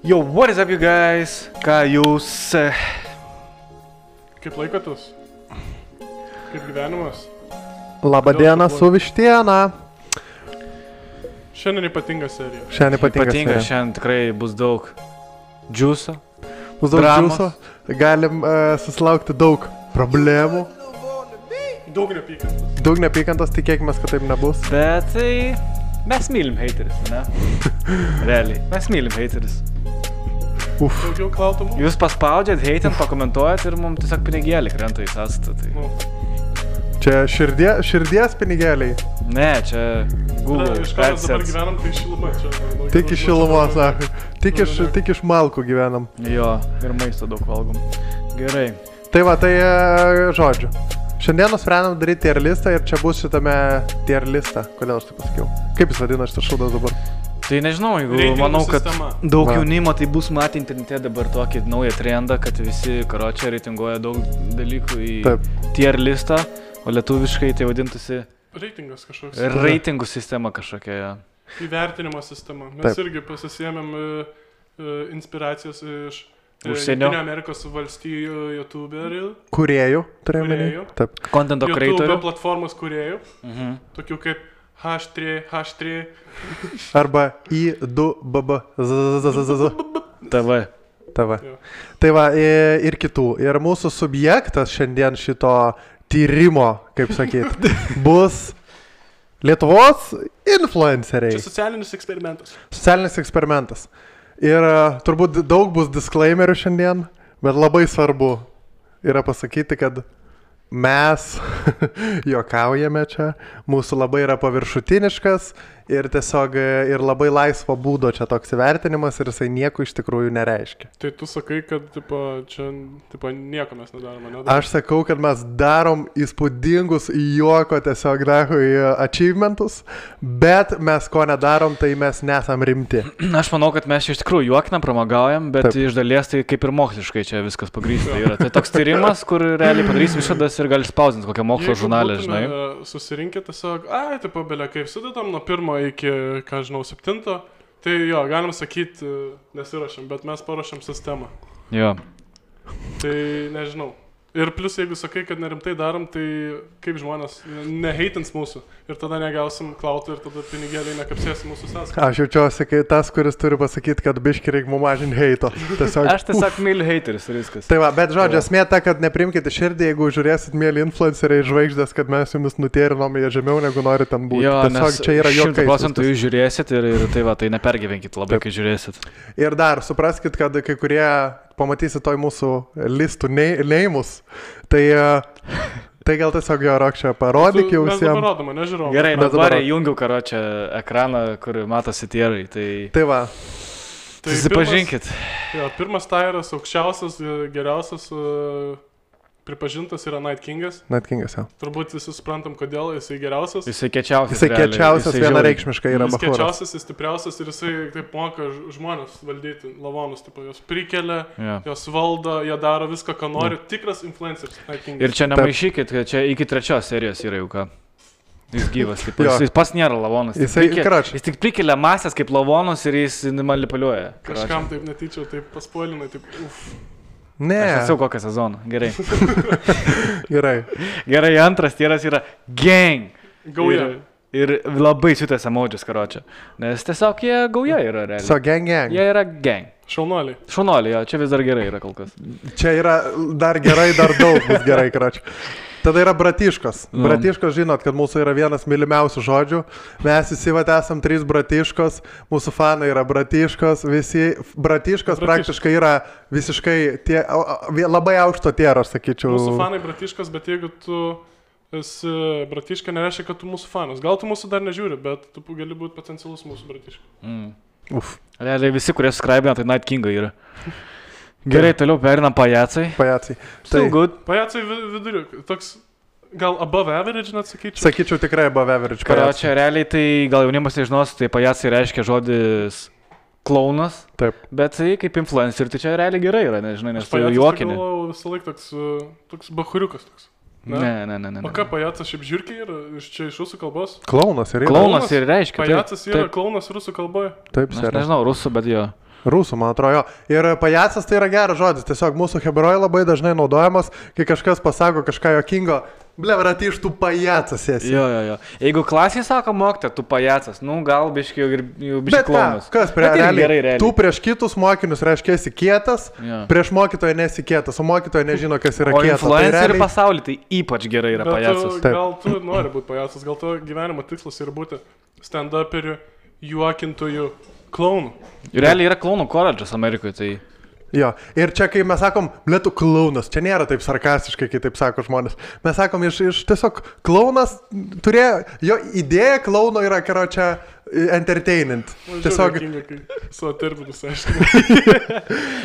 Yo, what is up, you guys? Ką jūs... Kaip laikotus? Kaip gyvenimas? Labadiena su vištiena. Šiandien ypatinga serija. Ypatinga, šiandien tikrai bus daug džiuso. Bus daug dramos. džiuso. Galim susilaukti daug problemų. Daug nepykantos. Daug nepykantos, tikėkime, kad taip nebus. Bet tai... Mes mylim hateris, ne? Realiai. Mes mylim hateris. Daugiau klautumų? Jūs paspaudžiat, hatent, pakomentuojat ir mums tiesiog pinigėlį krenta į sąstatą. Tai... Nu. Čia širdies pinigėliai. Ne, čia Google. Iš ką mes dabar gyvenam, tai šiluma čia. Tik iš šilumos, tik iš malkų gyvenam. Jo, ir maisto daug valgom. Gerai. Tai va, tai žodžiu. Šiandien nusprendėm daryti tier listą ir čia bus šitame tier listą. Kodėl aš taip pasakiau? Kaip jis vadina šitas šūdas dabar? Tai nežinau, jeigu Reitingų manau, kad sistema. daug jaunimo tai bus matę internete dabar tokį naują trendą, kad visi karočią reitinguoja daug dalykų į tier listą, o lietuviškai tai vadintųsi Reitingas kažkoks. reitingų sistema kažkokia. Ja. Įvertinimo sistema. Mes irgi pasisėmėm inspiracijas iš Užsienio. Amerikos valstijų youtuberių. Kūrėjų, turėjome. Taip. Contento creatorių. YouTube platformos kūrėjų. Tokių kaip H3. Arba I2BB. TV. Tai va, ir kitų. Ir mūsų subjektas šiandien šito tyrimo, kaip sakyt, bus Lietuvos influenceriai. Čia socialinis eksperimentas. Socialinis eksperimentas. Ir turbūt daug bus disclaimerių šiandien, bet labai svarbu yra pasakyti, kad mes juokaujame čia, mūsų labai yra paviršutiniškas ir tiesiog ir labai laisvo būdo čia toks įvertinimas ir jisai nieko iš tikrųjų nereiškia. Tai tu sakai, kad čia nieko mes nedarome, ne? Aš sakau, kad mes darom įspūdingus juoko tiesiog achievementus, bet mes ko nedarom, tai mes nesam rimti. Aš manau, kad mes iš tikrųjų juokinam, pramagaujam, bet iš dalies tai kaip ir moksliškai čia viskas pagrįsta yra. Tai toks tyrimas, kur realiai padarysim išvadas ir gali spausdinti kokią mokslo žurnalę, žinai. Susirinkė tiesiog, belia, kaip sudedam nuo 1 iki, 7, tai jo, galim sakyti, nesirašėm, bet mes paruošėm sistemą. Jo. Tai nežinau. Ir plus, jeigu sakai, kad nerimtai darom, tai kaip žmonės neheitins mūsų ir tada negausim klautų ir tada pinigėliai nekapsės mūsų sąskaitą. Aš jaučiuosi, kai tas, kuris turi pasakyti, kad biški reikia mums mažinti heito. Aš tiesiog myliu hateris ir viskas. Tai va, bet žodžiu, esmė ta, kad neprimkite širdį, jeigu žiūrėsit mėly influenceriai žvaigždės, kad mes jumis nutėrinom jie žemiau, negu nori ten būti. Jo, tiesiog čia yra juokai. 100% jūs žiūrėsit ir tai va, tai nepergyvenkit labai, kai žiūrėsit. Ir dar, supraskit, kad kai kurie pamatysit toj mūsų listų neimus, tai gal tiesiog jo Rokščia parodyk jau visiems. Mes parodome, nežiūrėjau. Gerai, dabar jungiu karočią ekraną, kur matosi tierai, Tai va. Tai susipažinkit. Pirmas tairas, aukščiausias, geriausias, pripažintas yra Night Kingas. Night Kingas, jau. Turbūt visi suprantam, kodėl jisai geriausias. Jisai kečiausias. Jisai kečiausias, vienareikšmiškai yra Jis bachūras. kečiausias, jis stipriausias ir jisai taip moka žmonės valdyti, lavonus, jos prikelia, jos valdo, jie daro viską, ką nori. Tikras influenceris Night Kingas. Ir čia nemaišykit, kad čia iki 3 serijos yra jau ką. Jis gyvas, jis pas nėra lavonas. Jis tik prikelia masės kaip lavonus ir jis manipuliuoja. Kažkam taip netyčia, taip paspoilinai, taip Ne. Aš esu kokią sezoną. Gerai. Gerai, antras tieras yra gang. Gauja. Ir labai siutęs emodžius, karočią. Nes tiesiog jie gauja yra realiai. So gang. Jie yra gang. Šaunuoliai. Šaunuoliai, jo, čia vis dar gerai yra kol kas. Čia yra dar gerai, dar daug bus gerai, karočią. Tada yra bratiškos. Bratiškos, žinot, kad mūsų yra vienas mylimiausių žodžių. Mes visi esam 3 bratiškos, mūsų fanai yra bratiškos, visi bratiškos praktiškai yra visiškai labai aukšto tiero, aš sakyčiau. Mūsų fanai bratiškos, bet jeigu tu esi bratiška, nereiškia, kad tu mūsų fanas. Gal tu mūsų dar nežiūri, bet tu gali būti potencialus mūsų bratiška. Realiai visi, kurie subscribina, tai Night Kingai yra. Gerai, toliau perinam pajacai. Still good. Pajacai viduriu. Toks gal above average, net sakyčiau. Sakyčiau tikrai above average. Karočią, realiai tai gal jaunimas nežinos, tai pajacai reiškia žodis klaunas. Taip. Bet tai kaip influencer, tai čia realiai gerai yra, nežinai, nes tai juokinė. Aš galvojau visą laiką toks bachuriukas toks. Ne. O ką pajacas šiaip žiūrkiai yra? Čia iš rusų kalbos? Klaunas ir Klaunas ir reiškia. Pajacas yra klaunas rusų kalboje? Taip, Aš nežinau, rusų, bet jo. Rusų, man atrodo, jo. Ir pajacas tai yra geras žodis. Tiesiog mūsų hebrojai labai dažnai naudojamas, kai kažkas pasako kažką jokingo. Blevrat, iš tų pajacas esi. Jo. Jeigu klasėje sako mokytoja, tu pajacas, nu gal biški jau biški klaunas. Kas realiai? Tu prieš kitus mokinius reiškia esi kietas, prieš mokytoją nesi kietas, o mokytoja nežino, kas yra kietas. O influencerių pasaulyje tai ypač gerai yra pajacas. Gal tu nori būti pajacas, gal tu gyvenimo tikslas yra būti stand-uperiu, juokintojų, klaunų. Realiai yra klaunų koledžas Amerikoje, tai... Jo, ir čia kai mes sakom, blėtų klaunas, čia nėra taip sarkastiškai, kai taip sako žmonės. Mes sakom, iš tiesiog klaunas turėjo, jo idėja klauno yra, karo čia entertainment. Tiesiog... Savo terminus, aišku.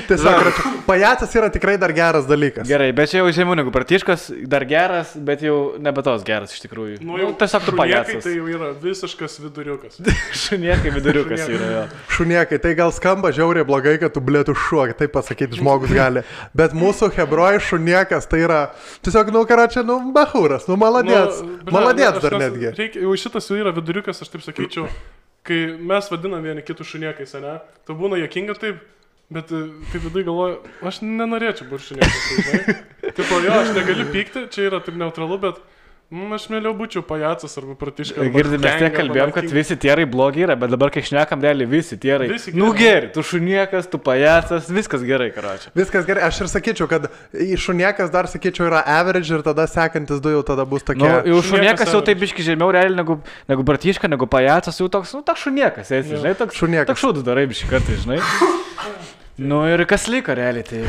Tiesiog, pajacas yra tikrai dar geras dalykas. Gerai, bet čia jau žemiau negu Bartiškas, dar geras, bet jau nebe tos geras iš tikrųjų. Nu, tiesiog tu pajacas. Tai jau yra visiškas viduriukas. Šuniekai viduriukas yra, jo. Šuniekai, tai gal skamba žiauriai blogai, kad tu blėtų šuo, taip pasakyti žmogus gali. Bet mūsų hebroj šuniekas tai yra tiesiog, karočią, bahūras, maladėts. Maladėts dar netgi. Jau šitas jau yra viduriukas, aš taip sakyčiau. Kai mes vadinam vieni kitų šuniekais, ne? Tai būna juokinga taip, bet taip vidui galvoju, aš nenorėčiau būti šuniekas, žinai. Taip, jo, aš negaliu pykti, čia yra taip neutralu, bet aš mėliau būčiau pajacas arba pratiškas. Girdim, mes tiek kalbėjom, kad visi tierai blogi yra, bet dabar kai šnekam, realiai visi tierai. Nu gerai, tu šuniekas, tu pajacas, viskas gerai, karočią. Viskas gerai, aš ir sakyčiau, kad šuniekas dar sakyčiau yra average ir tada sekantis du jau tada bus tokie. Nu, jau šuniekas jau taip biški žemiau realiai negu Bartiška, negu pajacas, jau toks, toks šuniekas, esi, žinai, toks šūdus darai biški kartai, žinai. Nu ir kas liko realiai, tai...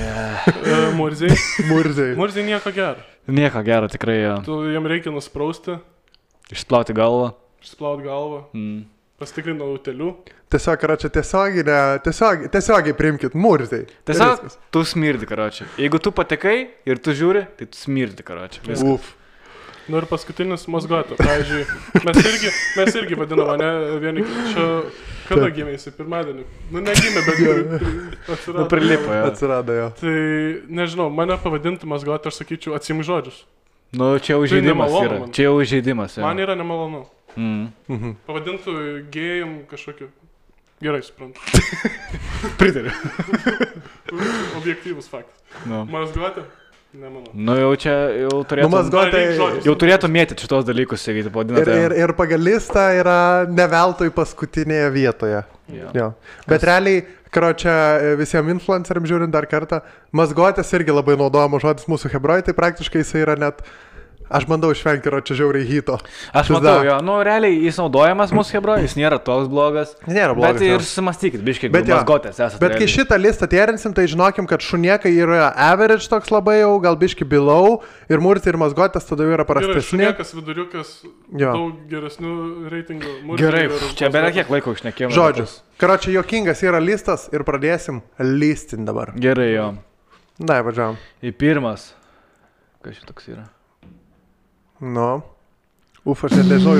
Murziai nieko gero. Nieko gero, tikrai jo. Tu jam reikia nusprausti. Išplauti galvą. Pastikrinti nuo utelių. Tiesiog, karočią, tiesiogiai priimkit, murziai. Tiesiog tu smirdi, karočią. Jeigu tu patekai ir tu žiūri, tai tu smirdi, karočią. Uf. Nu ir paskutinis mazgoto. Pavyzdžiui, mes irgi vadiname, ne, vieni čia... Kada gimė jisai? Pirmadienį. Nu, negimė, bet atsirado. Nu, prilipo, jo. Atsirado, jo. Tai, nežinau, mane pavadinti mazgotą, aš sakyčiau, atsimk žodžius. Nu, čia jau žaidimas yra. Čia jau žaidimas, jo. Man yra nemalonu. Pavadintų gėjim kažkokiu. Gerai, suprantu. Pritariu. Objektyvus faktas. Mazgotė? Nemanau. Nu, jau čia, jau turėtų mėtyti šitos dalykus, sakyti, pavadinate. Ir pagal listą yra neveltui paskutinėje vietoje. Jo. Bet realiai, karočią, visiems influenceriams žiūrint dar kartą, mazgotės irgi labai naudojama žodis mūsų hebroj, tai praktiškai jisai yra net... Aš bandau išvengti, yra čia žiauriai hito. Aš matau, jo, nu realiai jis naudojamas mūsų hebroj, jis nėra toks blogas. Nėra blogas. Bet ir susimastykit, biškiai, mazgotės esate. Bet kai šitą listą tierinsim, tai žinokim, kad šuniekai yra average toks labai jau, gal biški below, ir murti ir mazgotės tada jau yra prastesni. Šuniekas, viduriukas, daug geresnių reitingų. Gerai, čia beveik kiek laiko išnekėjome. Žodžius. Karočią, juokingas yra listas ir pradėsim listin dabar. Gerai, jo. Dai, važiavam. Į pirmas. Kas šitoks yra? Nu. Uf, aš nežinau.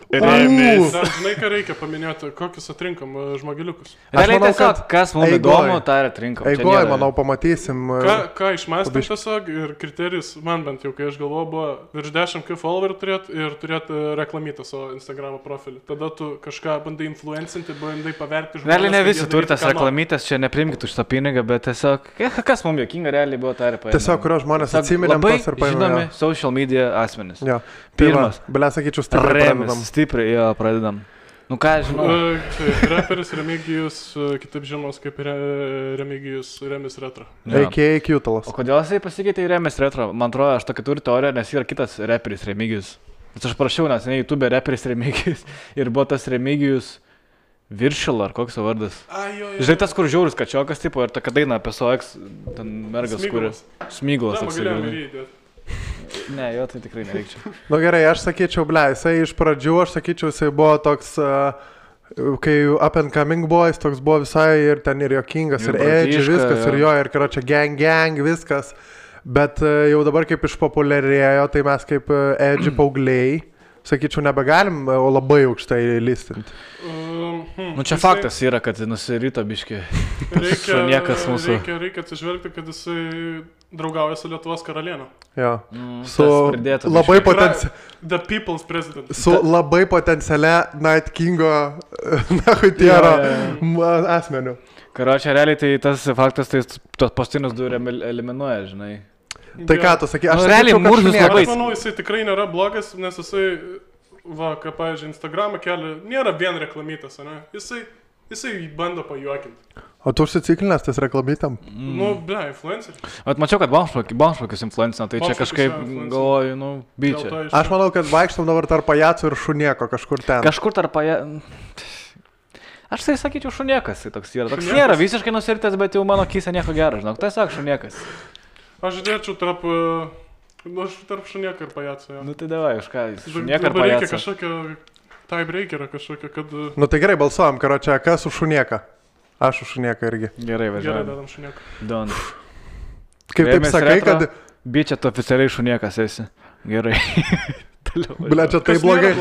Remis. Dar žinai, ką reikia paminėti, kokius atrinkom žmogeliukus. Realiai tiesiog, kas mums įdomu, tą ir atrinkom. Eigoj, manau, pamatysim. Ką išmąstėm tiesiog ir kriterijus, man bent jau, kai aš galvoju, buvo virš 10k followerių turėti ir turėti reklamytą savo Instagramo profilį. Tada tu kažką bandai influencinti, bandai paverti žmonės. Realiai ne visi turi tas reklamytės, čia neprimkit už tą pinigą, bet tiesiog, kas mums jokinga realiai buvo, tą ir paėmė. Tiesiog, kurios žmonės atsiminėm tos ir paėmė. Žinomi social media asmenys. Pirmas. Sakyčiau, stipriai pradedam. Stipriai, jo, pradedam. Nu ką, žinau. Reperis Remigijus, kitaip žinomas kaip Remigijus Remis Retro. A.K.A. Kjutalas. O kodėl jisai pasikeitė į Remis Retro? Man atrodo, aš tokia turiu teoriją, nes yra kitas reperis Remigijus. Nes aš prašiau, nes ne YouTube reperis Remigijus ir buvo tas Remigijus Viršil, ar koks jo vardas. Žinai, tas, kur žiaurus kačiokas, tipo, ir tokia daina apie SOX, ten mergas, kuris Smyglas. Ne, jo, tai tikrai nereikčiau. Nu gerai, aš sakyčiau, jisai iš pradžių, jisai buvo toks, kai Up and Coming Boys, toks buvo visai ir ten ir jokingas, ir edgy, viskas, ir jo, ir karočią gang, viskas. Bet jau dabar kaip išpopuliarėjo, tai mes kaip edgy paaugliai, sakyčiau, nebegalim labai aukštai listinti. Nu čia faktas yra, kad nusirito biški. Šuniekas mūsų. Reikia atsižvelgti, kad jisai draugauja su Lietuvos karalienė. Jo. Su labai The People's President. Su labai potencialia Night Kingo Nahutiero asmeniu. Karočią, realiai tai tas faktas, tai tos paskutinius du eliminuoja, žinai. Tai ką tu sakai, aš realiai Murzas labai... Aš manau, jisai tikrai nėra blogas, nes jisai, ką, pavyzdžiui, Instagramą kelia, nėra vien reklamytas, ne? Jisai bando pajuokinti. O tu užsiciklinęs tais reklamytam? Nu, influencer. Mačiau, kad Bomšvakis influencina, tai čia kažkaip galvoju, byčia. Aš manau, kad vaikštam dabar tarp pajacų ir šunieko kažkur ten. Kažkur tarp pajacų... Aš tai sakyčiau šuniekas, tai toks yra. Toks nėra visiškai nusiritęs, bet jau mano kyse nieko gero, žinok. Tai sak šuniekas. Aš dėčiau tarp šunieko ir pajacų. Nu tai davai, už ką jis šunieka ir pajacą. Reikia kažkokio tiebreakerą kažkokio, kad... Nu tai gerai, balsuojam, karočią, kas už šunieką? Aš už šunieką irgi. Gerai, važiuojam. Gerai, dadam šunieką. Don. Kaip taip sakai, kad... Bičia, tu oficialiai šuniekas esi. Gerai. Bля, čia tai blogai.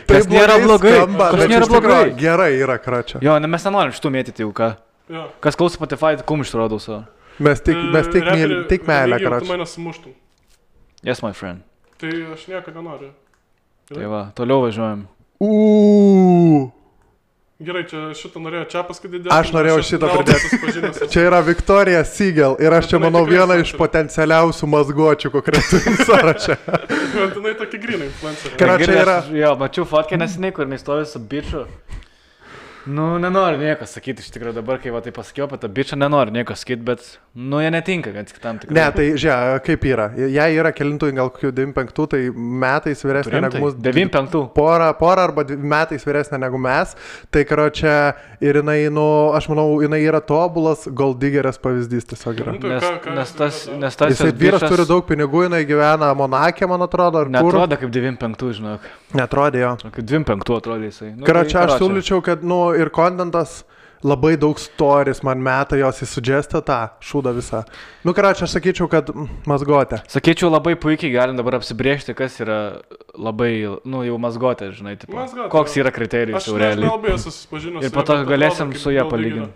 Kas nėra blogai. Kas nėra blogai. Gerai yra, kračia. Jo, mes nenorim šitų mėtyti jau, ką. Kas klauso Spotify, kumštų rodau savo. Mes tik meilę, kračia. Tu mane sumuštum. Yes, my friend. Tai aš nieko nenoriu. Tai va, toliau važiuojam. Gerai, čia šitą norėjo Čiapas, kad įdėtų. Aš norėjau šitą pridėti. Čia yra Victoria Siegel ir aš čia manau viena iš potencialiausių mazgočių konkretų sąraše. Jinai tokia gryna influencerė. Karočią yra... Jo, mačiau fotkę nesiniai, kur jinai stovi su biču. Nu, nenoriu nieko sakyti, iš tikrųjų dabar, kai va tai pasakiau apie tą bičą, nenoriu nieko sakyti, bet, nu, jie netinka, kad kitam tikrai. Ne, tai, žiūrėk, kaip yra. Jei yra kelintų, gal kokių 95, tai metais vyresnė negu mūsų. 95. Porą arba metais vyresnė negu mes. Tai, karočią, ir jinai, nu, aš manau, jinai yra tobulas golddiggerės pavyzdys tiesiog yra. Nes tas jisai vyras turi daug pinigų, jinai gyvena Monake, man atrodo, ar kur. Netrodo kaip 95, žinok. Netrodė jo. Kaip 25 atrodė jisai. Karočią, aš siūlyčiau, kad, nu, ir kontentas labai daug stories man meta, jos įsudžestė tą šūdą visą. Nu, karočią, aš sakyčiau, kad mazgotė. Sakyčiau, labai puikiai galim dabar apsibrėžti, kas yra labai, nu, jau mazgotė, žinai, tipo. Mazgotė, koks yra kriterijus jau realiai. Aš nelabai esu susipažinęs. Ir po to galėsim su ją palyginti.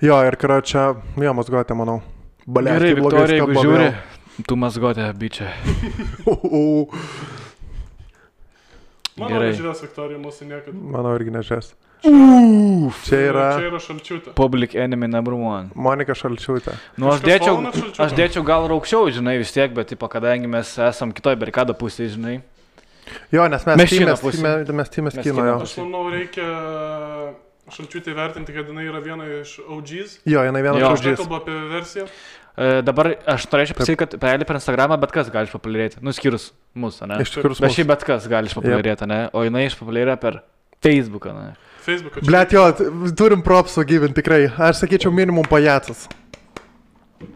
Jo, ir karočią, jo, mazgotė, manau. Gerai, Viktorija, jeigu žiūri, tu mazgotė, bičia. Mano nežiūrės Viktorija mūsų niekada. Mano irgi nežiūrės. Čia yra Šalčiūtė. Public enemy number one. Monika Šalčiūtė. Nu, aš dėčiau gal raukščiau, žinai, vis tiek, bet, tipo, kadangi mes esam kitoj barikado pusėje, žinai. Jo, nes mes tymės kino, jo. Aš manau, reikia Šalčiūtė vertinti, kad jinai yra viena iš OGs. Jo, jinai viena iš OGs. Aš kalbu apie versiją. Dabar aš norėčiau pasakyti, kad per Instagramą bet kas gali išpopuliarėti. Nu, skyrus mūsų, ne? Bet šiaip bet kas gali išpopuliarėti, ne? O jinai išpopuliarėja per Facebooką, ne? Facebooką. Blet, jo, turim propsų gyventi tikrai. Aš sakyčiau minimum pajacas.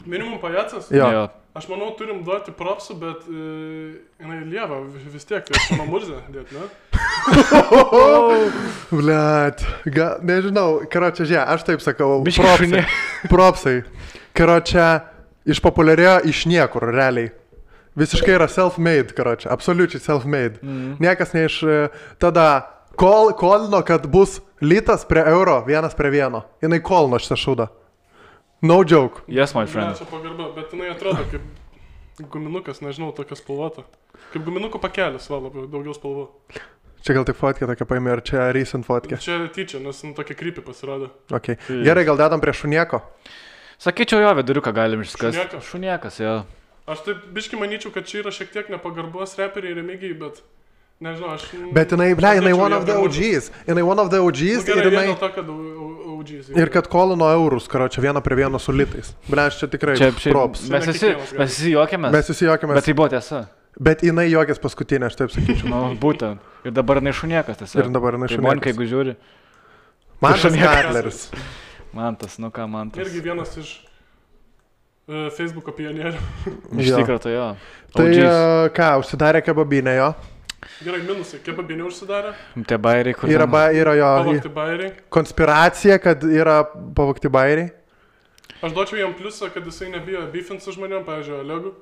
Minimum pajacas? Jo. Aš manau, turim duoti propsų, bet jinai lieva vis tiek, tai aš mano Murzę dėt, ne? Blet, nežinau, karočią, žiūrėk, aš taip sakau, propsai. Propsai. Karočią, išpopuliarėjo iš niekur, realiai. Visiškai yra self-made, karočią, absoliučiai self-made. Niekas ne iš... Tada kolino, kad bus litas prie euro, 1:1. Jinai kolino šitą šūdą. No joke. Yes, my friend. Ne, čia pagarba, bet jinai atrodo kaip guminukas, nežinau, tokia spalvota. Kaip guminukų pakelis, va, labai daugiau spalvų. Čia gal tik fotkė tokia paėmė, ar čia recent fotkė? Čia tyčia, nes tokia creepy pasirodė. Okay. Gerai, gal dedam prie šunieko? Sakyčiau, jo, viduriuką galim išskasti. Šuniekas, jo. Aš taip biškai manyčiau, kad čia yra šiek tiek nepagarbos reperiai Remigijai, bet nežinau, aš... Bet jinai, ble, jinai one of the OGs. Jinai one of the OGs ir jinai... To, kad OGs. Ir kad kolino eurus, karočią, 1:1 su litais. Ble, aš čia tikrai props. Mes visi juokėmės. Mes visi juokėmės. Bet tai buvo tiesa. Bet jinai juokės paskutinė, aš taip sakyčiau. Nu, būtent. Ir dabar jinai šuniekas tiesa. Ir dabar jinai šuniekas. Tai Monika, jeigu žiūri. Mantas Katleris. Mantas, nu ką Mantas. Irgi vienas iš Facebooko pionierių. Iš tikrųjų, tai jo. Tai ką, užsidarė kebabinė jo? Gerai, minusai, kebabinė užsidarė? Tie bairiai, kur... Yra jo... Pavogti bairiai. Konspiracija, kad yra pavogti bairiai. Aš duočiau jam pliusą, kad jisai nebijo beefint su žmonėm, pavyzdžiui, Olegu.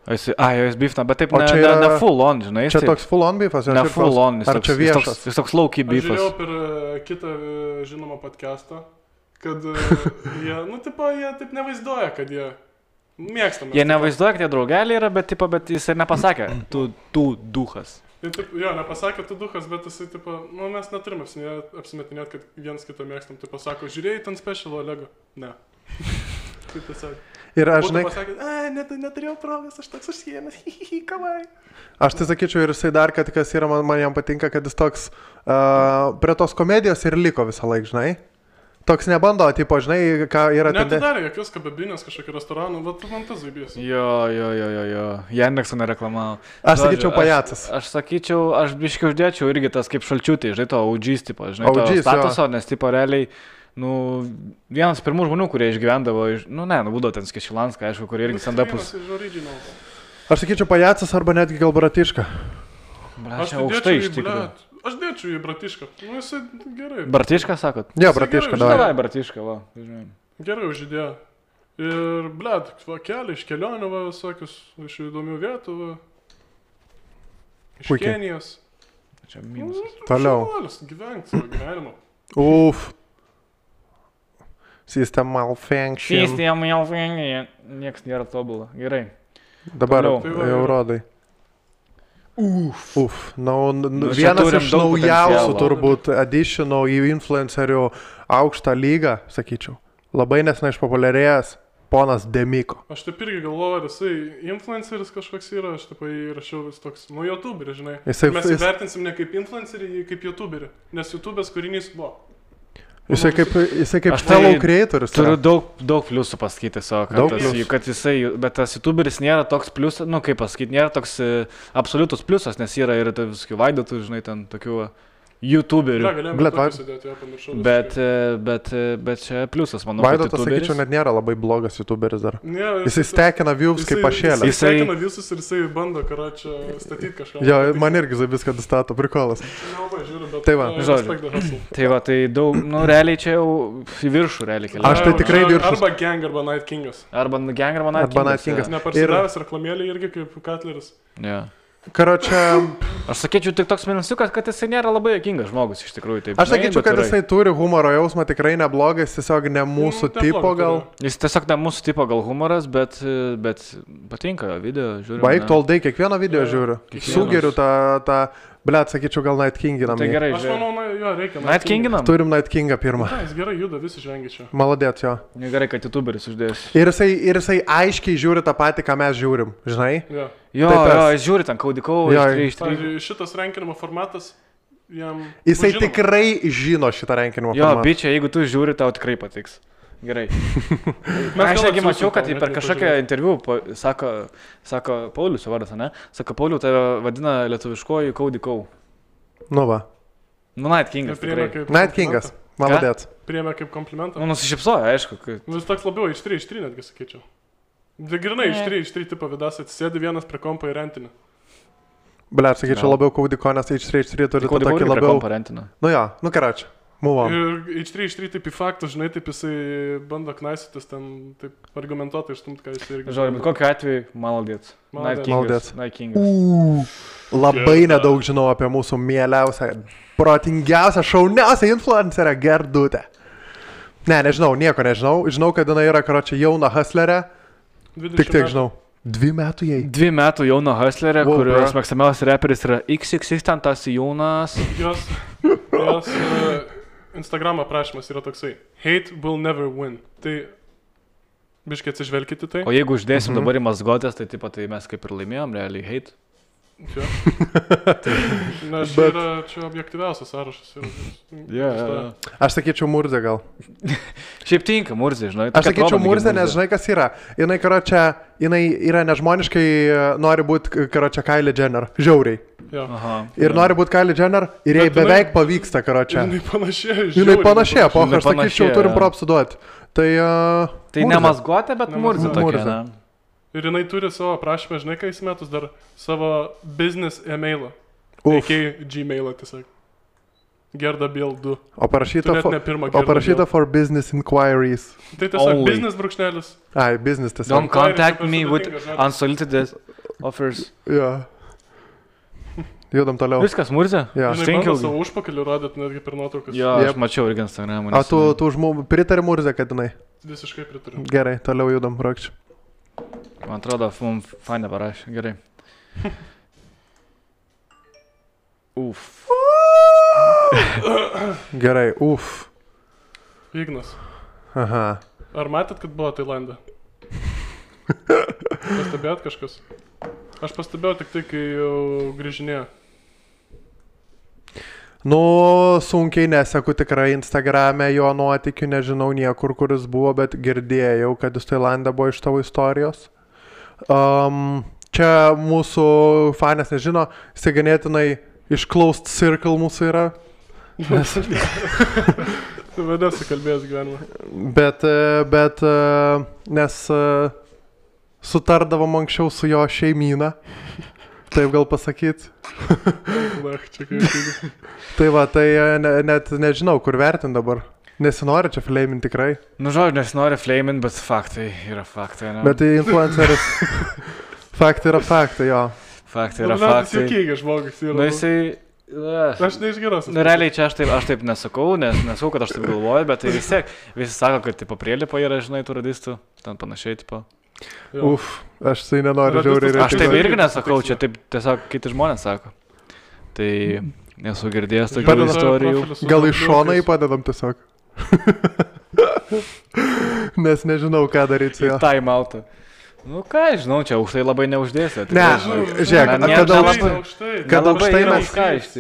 Jis beefna, bet taip O čia ne yra- full on, žinai. Čia toks full on beefas? Ne full on, Ar čia viešas? jis toks low-key Aš žiūrėjau beefas. per kitą žinomą podcastą, kad jie, jie taip nevaizduoja, kad jie mėgstame. Jie nevaizduoja, kad jie draugeliai yra, bet jis ir nepasakė, tu duhas. Jo, nepasakė tu duhas, bet jisai, mes neturim apsimetinėti, kad vienas kitą mėgstam. Tai pasako, žiūrėjai ten special Olego? Ne. Kaip tiesiog. Ir aš, žinai, Pasakė, neturėjau progos, aš toks užsiėmęs, kavai. aš tai sakyčiau ir jisai dar, kad kas yra, man jam patinka, kad jis toks prie tos komedijos ir liko visą laiką, žinai. Toks nebando, tipo, žinai, ką yra ten. Neatidarė jokios kababinės kažkokį restoraną, bet man tas zaibės. Jo. Jandekso nereklamavo. Aš sakyčiau pajacas. Aš sakyčiau, aš biškai uždėčiau irgi tas kaip šalčiutį, žinai, to OG's tipo, žinai, to OG's, statuso, nes tipo realiai, vienas pirmų žmonių, kurie išgyvendavo, būdavo ten Skešilanską, aišku, kurie irgi stand-upus. Aš sakyčiau pajacas arba netgi gal Bratiška. Aš aukštai iš tikrųjų. Aš dėčiau į Bratišką. Jisai gerai. Bratišką sakot? Jo, Bratiška, gerai, davai. Davai, Bratišką, va. Žinai. Gerai užidėjo. Ir, keliai iš kelionių, visokius, iš įdomių vietų, iš Puikiai. Kenijos. Čia minusas. Toliau. Gyvenk savo gyvenimą. Uf. System malfunction. Sistema jau vengia, nieks nėra tobulą. Gerai. Dabar Toliau. jau rodai. Uf. čia Vienas turim iš daug naujausių potencialo. turbūt additionų į influencerių aukštą lygą, sakyčiau. Labai nesnai išpopuliarėjęs ponas Demiko. Aš taip irgi galvoju, ar jisai influenceris kažkoks yra, aš taip įrašiau vis toks, youtuberis, žinai. Mes įvertinsim ne kaip influencerį, kaip youtuberį, nes YouTube'as kūrinys buvo. Jisai kaip Aš tai fellow creatoris. Turiu yra. daug pliusų pasakyti savo, Daug kad, pliusų. kad jisai, bet tas YouTuberis nėra toks pliusas, kaip pasakyti, nėra toks absoliutus pliusas, nes yra ir visokių vaidotų, žinai, ten tokių YouTuberių. Galėjome Blet, tokį sudėti, jo, pamiršau. Bet čia pliusas, manau, kad Vaidotas, YouTuberis. sakyčiau, net nėra labai blogas YouTuberis dar. Ne, Jisai stekina views kaip pašėlė. Jisai stekina visus ir jisai bando, čia statyti kažką. Jo, man irgi viską stato, prikolas. Nelabai žiūriu, bet... Tai va. Žodžiu. Tai va, tai daug, realiai čia jau į viršų realiai keliauja. Aš tai tikrai viršus. Arba Gang, arba Night Kingas. Arba Gang, arba Night Arba Night Kingas. Kingas. Neparsidavęs reklamėlį irgi kaip Cutleris. Jo. Karočią, Aš sakyčiau tik toks minusiukas, kad jisai nėra labai jokingas žmogus iš tikrųjų. Taip, aš sakyčiau, kad jisai turi humoro jausmą, tikrai neblogas, tiesiog ne mūsų tipo gal. Jis tiesiog ne mūsų tipo gal humoras, bet patinka video, žiūriu. Baig toldai, kiekvieną video žiūriu. Kiekvienas. Sugeriu tą, blet, sakyčiau, gal Night Kinginam. Tai gerai, Aš žiūrėjau. manau, jo, reikia. Night Kinginam? Turim Night Kingą pirmą. Na, jis gerai juda, visi žengia čia. Maladėt jo. Gerai, kad YouTuberis uždės. Ir jisai aiškiai žiūri tą patį, ką mes žiūrim, žinai? Jo. Jo, Tai tas. jis žiūri ten kaudikau, Jo, iš 3. Pavyzdžiui, šitas rankinimo formatas jam... Jisai žinoma. tikrai žino šitą rankinimo Jo, formatą. bičia, jeigu tu žiūri, tau tikrai patiks. Gerai. gal Aš negi atsiųsim mačiau, kad tau, per net kažkokią nepažiūrėjau. interviu sako Paulius vardas, ne? Sako, Pauliu, tave vadina lietuviškoji kaudikau. Nu va. Night Kingas. Priėmė Tikrai. kaip Night Kingas. Maladėt. Priėmė kaip komplimentą. Nusišypsojo, aišku. Kad... Vis toks labiau iš 3 netgi sakyčiau. Grinai iš 3 tipo vidas atsisėdi vienas prie kompo į rentinį. Blet, sakyčiau, labiau kaudiko, nes H3 turi tą tokį labiau... parentina. Nu jo, nu karočią. Move on. Ir iš 3 taip į faktus, žinai, taip jisai bando knaisytis ten, taip argumentuotai išstumti, ką jisai irgi... Žodžiu, bet kokiu atveju, maladėt. Night Maladėt. Kingas. Night Kingas. Labai nedaug žinau apie mūsų mieliausią, protingiausią, šauniausią influencerę Gerdutę. Ne, nežinau, nieko nežinau. Žinau, kad jinai yra, karočią, jauna hustlerė. Tik tiek žinau. 2 metų jai. 2 metų jauna hustlerė, Wow, kurios bro. mėgstamiausias reperis yra XXX, ten tas jaunas. Jos Instagram aprašymas yra toksai. Hate will never win. Tai biškai atsižvelkite tai. O jeigu uždėsim dabar į mazgotės, tai taip pat tai mes kaip ir laimėjom, realiai hate. Čia. Nes čia yra čia objektyviausias sąrašas. Aš sakyčiau Murzė gal. Šiaip tinka, Murzė, žinai. Aš sakyčiau Murzė, nes žinai kas yra. Jinai, karočią, jinai yra nežmoniškai, nori būti, karočią, Kylie Jenner. Žiauriai. Aha. Ir nori būti Kylie Jenner ir jai Bet jinai- beveik pavyksta, karočią. Jinai panašėja. Jinai panašėja, po Jinai aš sakyčiau, panašėja, turim jo. propsų duoti. Tai... Tai ne mazgotė, bet Ne Murzė mazgotė. tokia, Murzė. ne? Ir jinai turi savo aprašymą, žinai, ką įsimetus dar savo business e-mailą. Uf. AK Gmailą tiesiog. Gerda Biel 2. O parašyta, Tu net ne pirmą o Gerda parašyta Biel. for business inquiries. Tai tiesiog Only. business brūkšnelis. Ai, business tiesiog. Don't contact super me with sudėtingas žodis. unsolicited offers. Jo. Judam toliau. Viskas, Murzė? Jo. Žinai, bando savo užpakalį rodėt netgi per nuotraukas. Jo, aš mačiau irgi Instagram'ą. O tu pritari Murzė, kad jinai? Visiškai pritariu. Gerai, toliau judam, Rokčiu. Man atrodo, mums fainę parašė. Gerai. Uf. Gerai, uf. Ignas. Aha. Ar matėt, kad buvo Tailande? Pastebėjot kažkas? Aš pastebėjau tik tai, kai jau grįžinėjo. Nu, sunkiai neseku tikrai Instagram'e jo nuotikių, nežinau niekur, kuris buvo, bet girdėjau, kad jis Tailande buvo iš tavo istorijos. Čia mūsų fanės nežino, jis ganėtinai iš closed circle mūsų yra. Tu vadasi kalbėjęs gyvenimą. Bet nes sutardavom anksčiau su jo šeimyna, taip gal pasakyt. Tai va, tai net nežinau, kur vertint dabar. Nesinori čia flamin tikrai. Nu, žodžiu, nesinori flamin, bet faktai yra faktai, ne? Bet tai influenceris. Faktai yra faktai, jo. Faktai yra faktai. Juokingas žmogus yra. Nu, jisai... Aš neišgeros. Nu, realiai čia aš taip nesakau, nesakau, kad aš taip galvoju, bet tai vis tiek, visi sako, kad tipo prielipo yra, žinai, tų radistų, ten panašiai, tipo. Jo. Uf, aš tai nenoriu žiauriai. Aš taip irgi nesakau, čia taip tiesiog kiti žmonės sako. Tai nesu girdėjęs tokių istorijų. Gal iš šono įpadedam tiesiog. Nes nežinau, ką daryti su juo. Time out'ą. Nu ką, žinau, čia aukštai labai neuždėsi. Ne, žiūrėk, kad aukštai mes...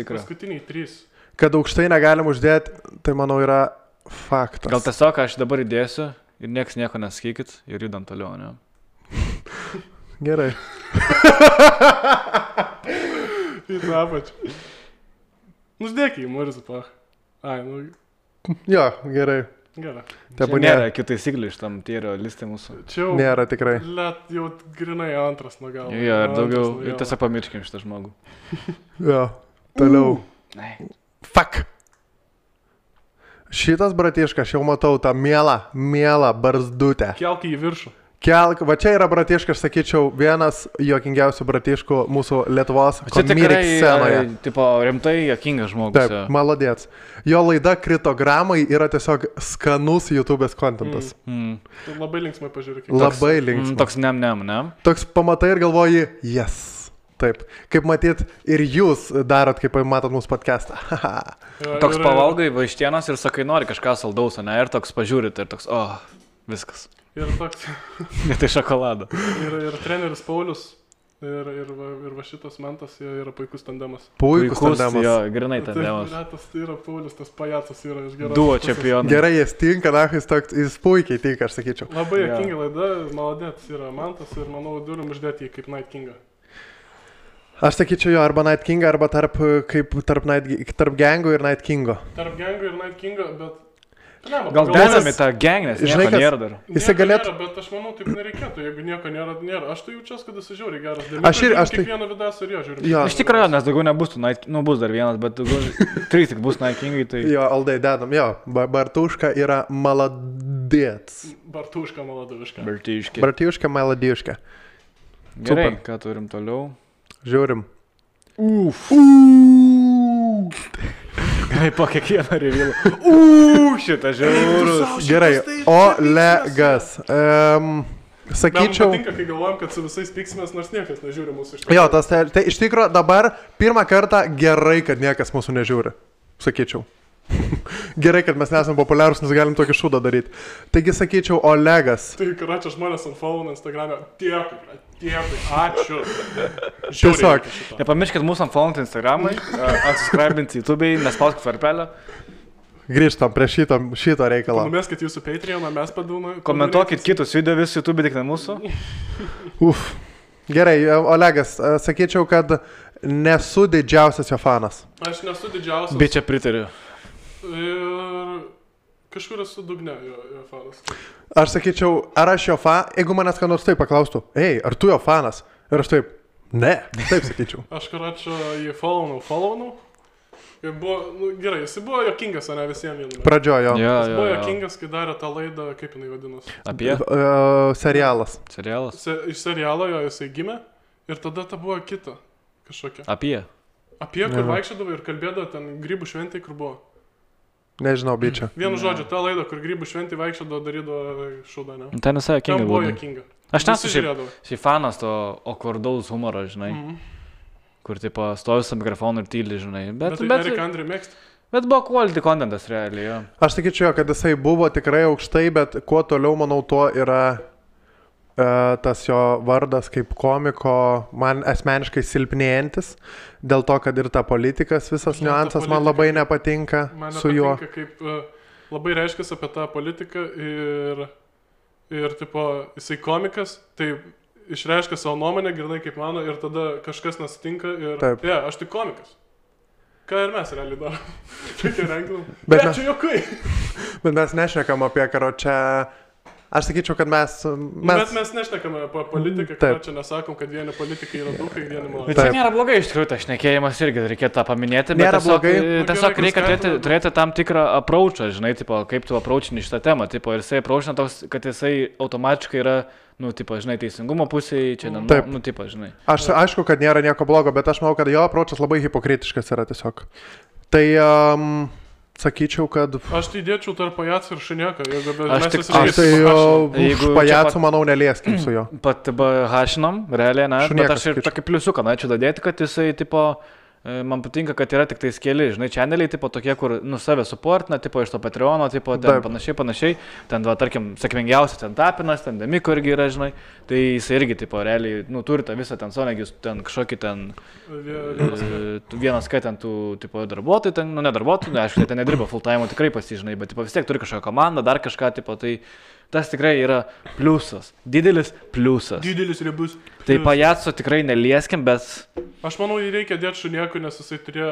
Paskutiniai 3. Kad aukštai negalim uždėti, tai manau yra faktas. Gal tiesiog aš dabar įdėsiu ir nieks nieko nesakykit ir judam toliau, ne? Gerai. Į tą apačią. Nusdėk į Murzą, pach. Ai, nu... Jo, gerai. Gerai. Čia nėra kitų taisyklių iš tam tyrio listai mūsų. Čia jau... Nėra tikrai. Let jau grinai antras nuo galo. Jo, ir daugiau, ir tiesiog pamirškim šitą žmogų. Jo, toliau. Fuck. Šitas bratiškas, aš jau matau tą mielą barzdutę. Kelk į viršų. Va čia yra bratiškas, sakyčiau, vienas juokingiausių bratiškų mūsų Lietuvos komedic scenoje. Tipo, rimtai juokingas žmogus. Taip, malodėts. Jo laida Kritogramai yra tiesiog skanus YouTube'ės kontentas. Tu labai linksmai pažiūrėk. Labai linksmai. Toks ne? Toks pamatai ir galvoji, yes. Taip. Kaip matyt, ir jūs darot, kaip matot mūsų podcastą. Toks pavalgai vaištienos ir sakai, nori kažką saldaus, ne? Ir toks pažiūrit ir toks, viskas. Ir toks. Ne tai šokolado. Ir treneris Paulius. Ir va šitas Mantas yra puikus tandemas. Puikus tandemas. Jo, grinai tandemas. Tai yra Paulius, tas pajacas yra iš geros. Duo čempionas. Gerai, jis tinka, jis puikiai tinka, aš sakyčiau. Labai juokinga laida, maladėts yra Mantas ir manau turim uždėti jį kaip Night Kingą. Aš sakyčiau jo, arba Night Kingą, arba tarp Gango ir Night Kingo. Tarp Gango ir Night Kingo, bet... Gal dedami tą gang, nes nieko nėra dar. Jisai galėtų... Bet aš manau, taip nereikėtų, jeigu nieko nėra. Aš tai jaučiuosi, kad jis žiauriai geras. Aš kiekvieną vidasą ir jo žiūriu. Iš tikrųjų, nes daugiau nebus tų Night... Nu, bus dar vienas, bet daugiau... 3 tik bus Night Kingai, tai... Jo, Aldai dedam, jo. Bartuška yra maladėts. Bartuška maladuška. Bartuška maladiška. Gerai, ką turim toliau? Žiūrim. Gerai, po kiekvieną revilą. Šitą žiaurus. Gerai, Olegas. Sakyčiau... Man patinka, kai galvojam, kad su visais piksimės, nors niekas nežiūri mūsų iš tikrųjų. Jo, tai iš tikrųjų dabar pirmą kartą gerai, kad niekas mūsų nežiūri. Sakyčiau. Gerai, kad mes nesame populiarūs, nes galim tokį šūdą daryti. Taigi sakyčiau, Olegas. Tai karačia žmonės ant follow Instagram'e. Dėkui, ačiū. Tiesiog. Nepamirškit mūsų ant follow Instagram'ai, atsiscribinti YouTube'ai, nespauskit varpelio. Grįžtam prie šito reikalo. Numeskit jūsų Patreoną, mes padūnai. Komentuokit kitus video vis YouTube, tik ne mūsų. Gerai, Olegas, sakyčiau, kad nesu didžiausias jo fanas. Aš nesu didžiausias. Bet čia pritariu. Ir kažkur esu dugne jo fanas. Aš sakyčiau, ar aš jo fanas, jeigu manęs ką nors taip paklaustų, ar tu jo fanas? Ir aš taip, ne, taip sakyčiau. Aš karačio jį follownau. Ir buvo, gerai, jis buvo juokingas, o ne visiems viename. Pradžiojo. Jis buvo juokingas, kai darė tą laidą, kaip jinai vadinasi. Apie? Serialas. Serialas? Iš serialo jo jisai gimė. Ir tada ta buvo kita kažkokia. Apie, kur vaikščiodavo ir kalbėdavo ten grybų šventai, kur buvo. Nežinau, bičia. Vienu žodžiu, ta laida, kur grybų šventai vaikščiodavo, darydavo šūdą, ne? ten visai jokinga Ten buvo buvo. jokinga. Aš nesu Visi šiaip žiūrėdavo. fanas to okvardaus humoro, žinai. Kur, tipo, stovi su mikrofonu ir tyli, žinai. Bet Eric Andre mėgsta. Bet buvo quality contentas realiai, jo. Aš sakyčiau, kad jisai buvo tikrai aukštai, bet kuo toliau, manau, tuo yra tas jo vardas kaip komiko man asmeniškai silpnėjantis, dėl to, kad ir ta politikas, visas niuansas man labai nepatinka su juo. Man nepatinka, kaip labai reiškia apie tą politiką ir tipo, jisai komikas, tai išreiškia savo nuomonę, grinai kaip mano, ir tada kažkas nesitinka ir aš tik komikas. Ką ir mes realiai darom. Tokia renginam. Bet čia jokai. Bet mes nešnekam apie karočią. Aš sakyčiau, kad Bet mes nešnekame apie politiką, kad čia nesakom, kad vieni politikai yra dukai, vieni maloniai. Bet čia nėra blogai, iš tikrųjų, tas šnekėjimas irgi reikėtų tą paminėti, bet tiesiog reikia turėti tam tikrą approachą, žinai, tipo, kaip tu approachini šitą temą, tipo, ir jisai approachina toks, kad jisai automatiškai yra, nu, tipo, žinai, teisingumo pusėje, čia, nu, tipo, žinai. Aš aišku, kad nėra nieko blogo, bet aš manau, kad jo approachas labai hipokritiškas yra tiesiog. Tai sakyčiau, kad... Aš tai dėčiau tarp pajacų ir šunieka. Aš tai už pajacų, manau, nelieskim su juo. Pat hašinom, realiai, ne? Bet aš ir tokį pliusiuką norėčiau dadėti, kad jisai, tipo, man patinka, kad yra tik tais keli, žinai, channeliai, tipo, tokie, kur, nu, save supportina, tipo, iš to Patreono, tipo, ten panašiai. Ten, va, tarkim, sėkmingiausia, ten Tapinas, ten Demiko irgi yra, žinai. Tai jisai irgi, tipo, realiai, nu, turi tą visą ten sonegius, ten kažkokį ten... Vienas, kai ten tų, tipo, darbuotojų, ten, nu, ne darbuotojų, aišku, ten nedirba full time, tikrai pasižinai, bet, tipo, vis tiek turi kažkokią komandą, dar kažką, tipo, tai... Tas tikrai yra pliusas. Didelis pliusas. Didelis riebus. Tai pajaco tikrai nelieskim, bet... Aš manau, jį reikia dėti šuniekui, nes jisai turėjo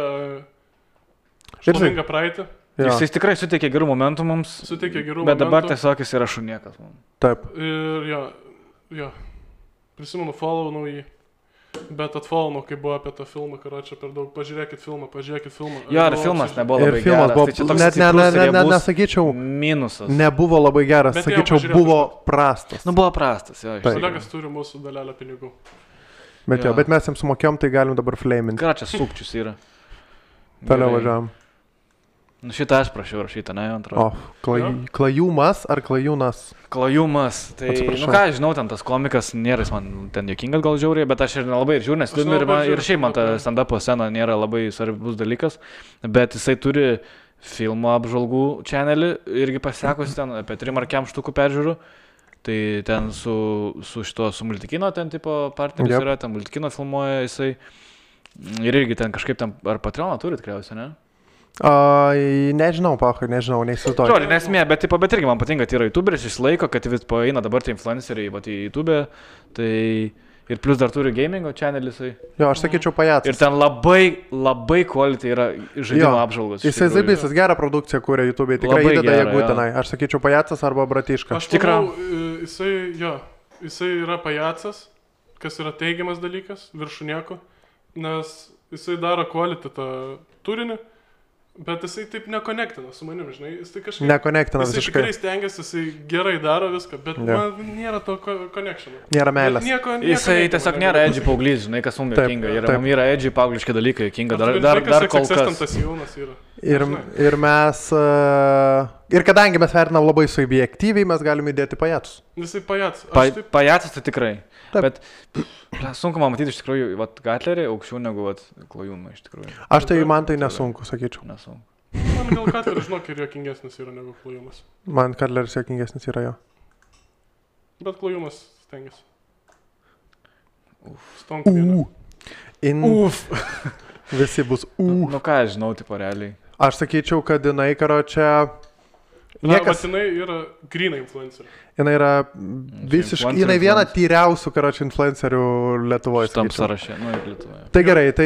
šlovingą praeitį. Jisai tikrai suteikė gerų momentų mums. Bet dabar tiesiog jis yra šuniekas. Taip. Ir jo. Prisimenu, follownau jį. Bet atfollownau, kai buvo apie tą filmą, karočią per daug. Pažiūrėkit filmą. Jo, ir filmas nebuvo labai geras. Tai čia toks nesakyčiau, minusas. Nebuvo labai geras, sakyčiau, buvo prastas. Nu, buvo prastas, jo. Kolegas turi mūsų dalelę pinigų. Bet mes jiems sumokėjom, tai galim dabar flaminti. Ką čia sukčius yra? Toliau važiavam. Nu, šitą aš prašiau rašytą, ne, antrą. Klajumas ar klajūnas? Klajumas. Tai, nu ką, žinau, ten tas komikas nėra, jis man ten jokingas gal žiauriai, bet aš ir nelabai žiūriu, nes ir šiaip man ta stand-upo scena nėra labai svarbus dalykas, bet jisai turi filmo apžvalgų channelį, irgi pasekusi ten apie 3 ar 4 štukų peržiūrų. Tai ten su Multikino ten tipo partneris yra, ten Multikino filmuoja jisai. Ir irgi ten kažkaip ten, ar Patreoną turi tikriausiai, ne? Nežinau, nežinau, neįsivaizduoju. Žodžiu, nesmė, bet irgi man patinka, kad yra YouTuberis, jis laiko, kad vis eina dabar tie influenceriai į YouTube, tai ir plus dar turi gamingo channelį jisai. Jo, aš sakyčiau pajacas. Ir ten labai quality yra žaidimo apžvalgos. Jisai zaibysas, gerą produkciją kūrė YouTube, tikrai įdeda jėgų tenai. Aš sakyčiau pajacas arba bratiška. Aš manau, jisai yra pajacas, kas yra teigiamas dalykas, viršunieko, nes jisai daro quality tą turinį. Bet jisai taip nekonektina su manim, žinai, jis tai kažkaip... Nekonektina visiškai. Jisai tikrai stengiasi, jisai gerai daro viską, bet man nėra to connectiono. Nėra meilės. Jisai tiesiog nėra edgy paauglys, žinai, kas mums jokinga. Mums yra edgy paaugliški dalykai jokinga, dar kol kas. Ir mes... Ir kadangi mes vertinam labai subjektyviai, mes galime įdėti pajacus. Jisai pajacas. Pajacas tai tikrai. Bet sunku man matyti iš tikrųjų, Gatlerį aukščiau negu Klajumą iš tikrųjų. Aš tai man tai nesunku, sakyčiau. Nesunku. Man gal Gatleris, žinok, ir juokingesnis yra negu Klajumas. Man Gatleris juokingesnis yra jo. Bet Klajumas stengiasi. Stonk vieną. Visi bus Nu ką, žinau, tipo realiai. Aš sakyčiau, kad jinai, karočią... Jinai yra grynai influencerė. Jinai yra visiškai, jinai viena tyriausių, karočią, influencerių Lietuvoje. Tam sąraše, nu ir Lietuvoje. Tai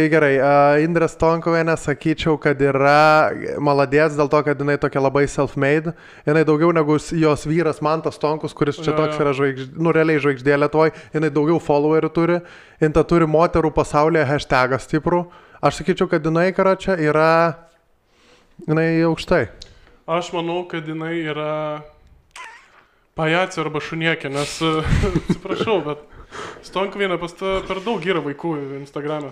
gerai. Indrė Stonkuvienė, sakyčiau, kad yra maladės dėl to, kad jinai tokia labai self-made. Jinai daugiau negu jos vyras Mantas Stonkus, kuris čia toks yra realiai žvaigždė Lietuvoje. Jinai daugiau followerių turi. Jinai turi moterų pasaulyje hashtagą stiprų. Aš sakyčiau, kad jinai, karočią, yra... Jinai aukštai. Aš manau, kad jinai yra pajacė arba šuniekė, nes, atsiprašau, bet Stonkvienė pas ta per daug yra vaikų Instagram'e.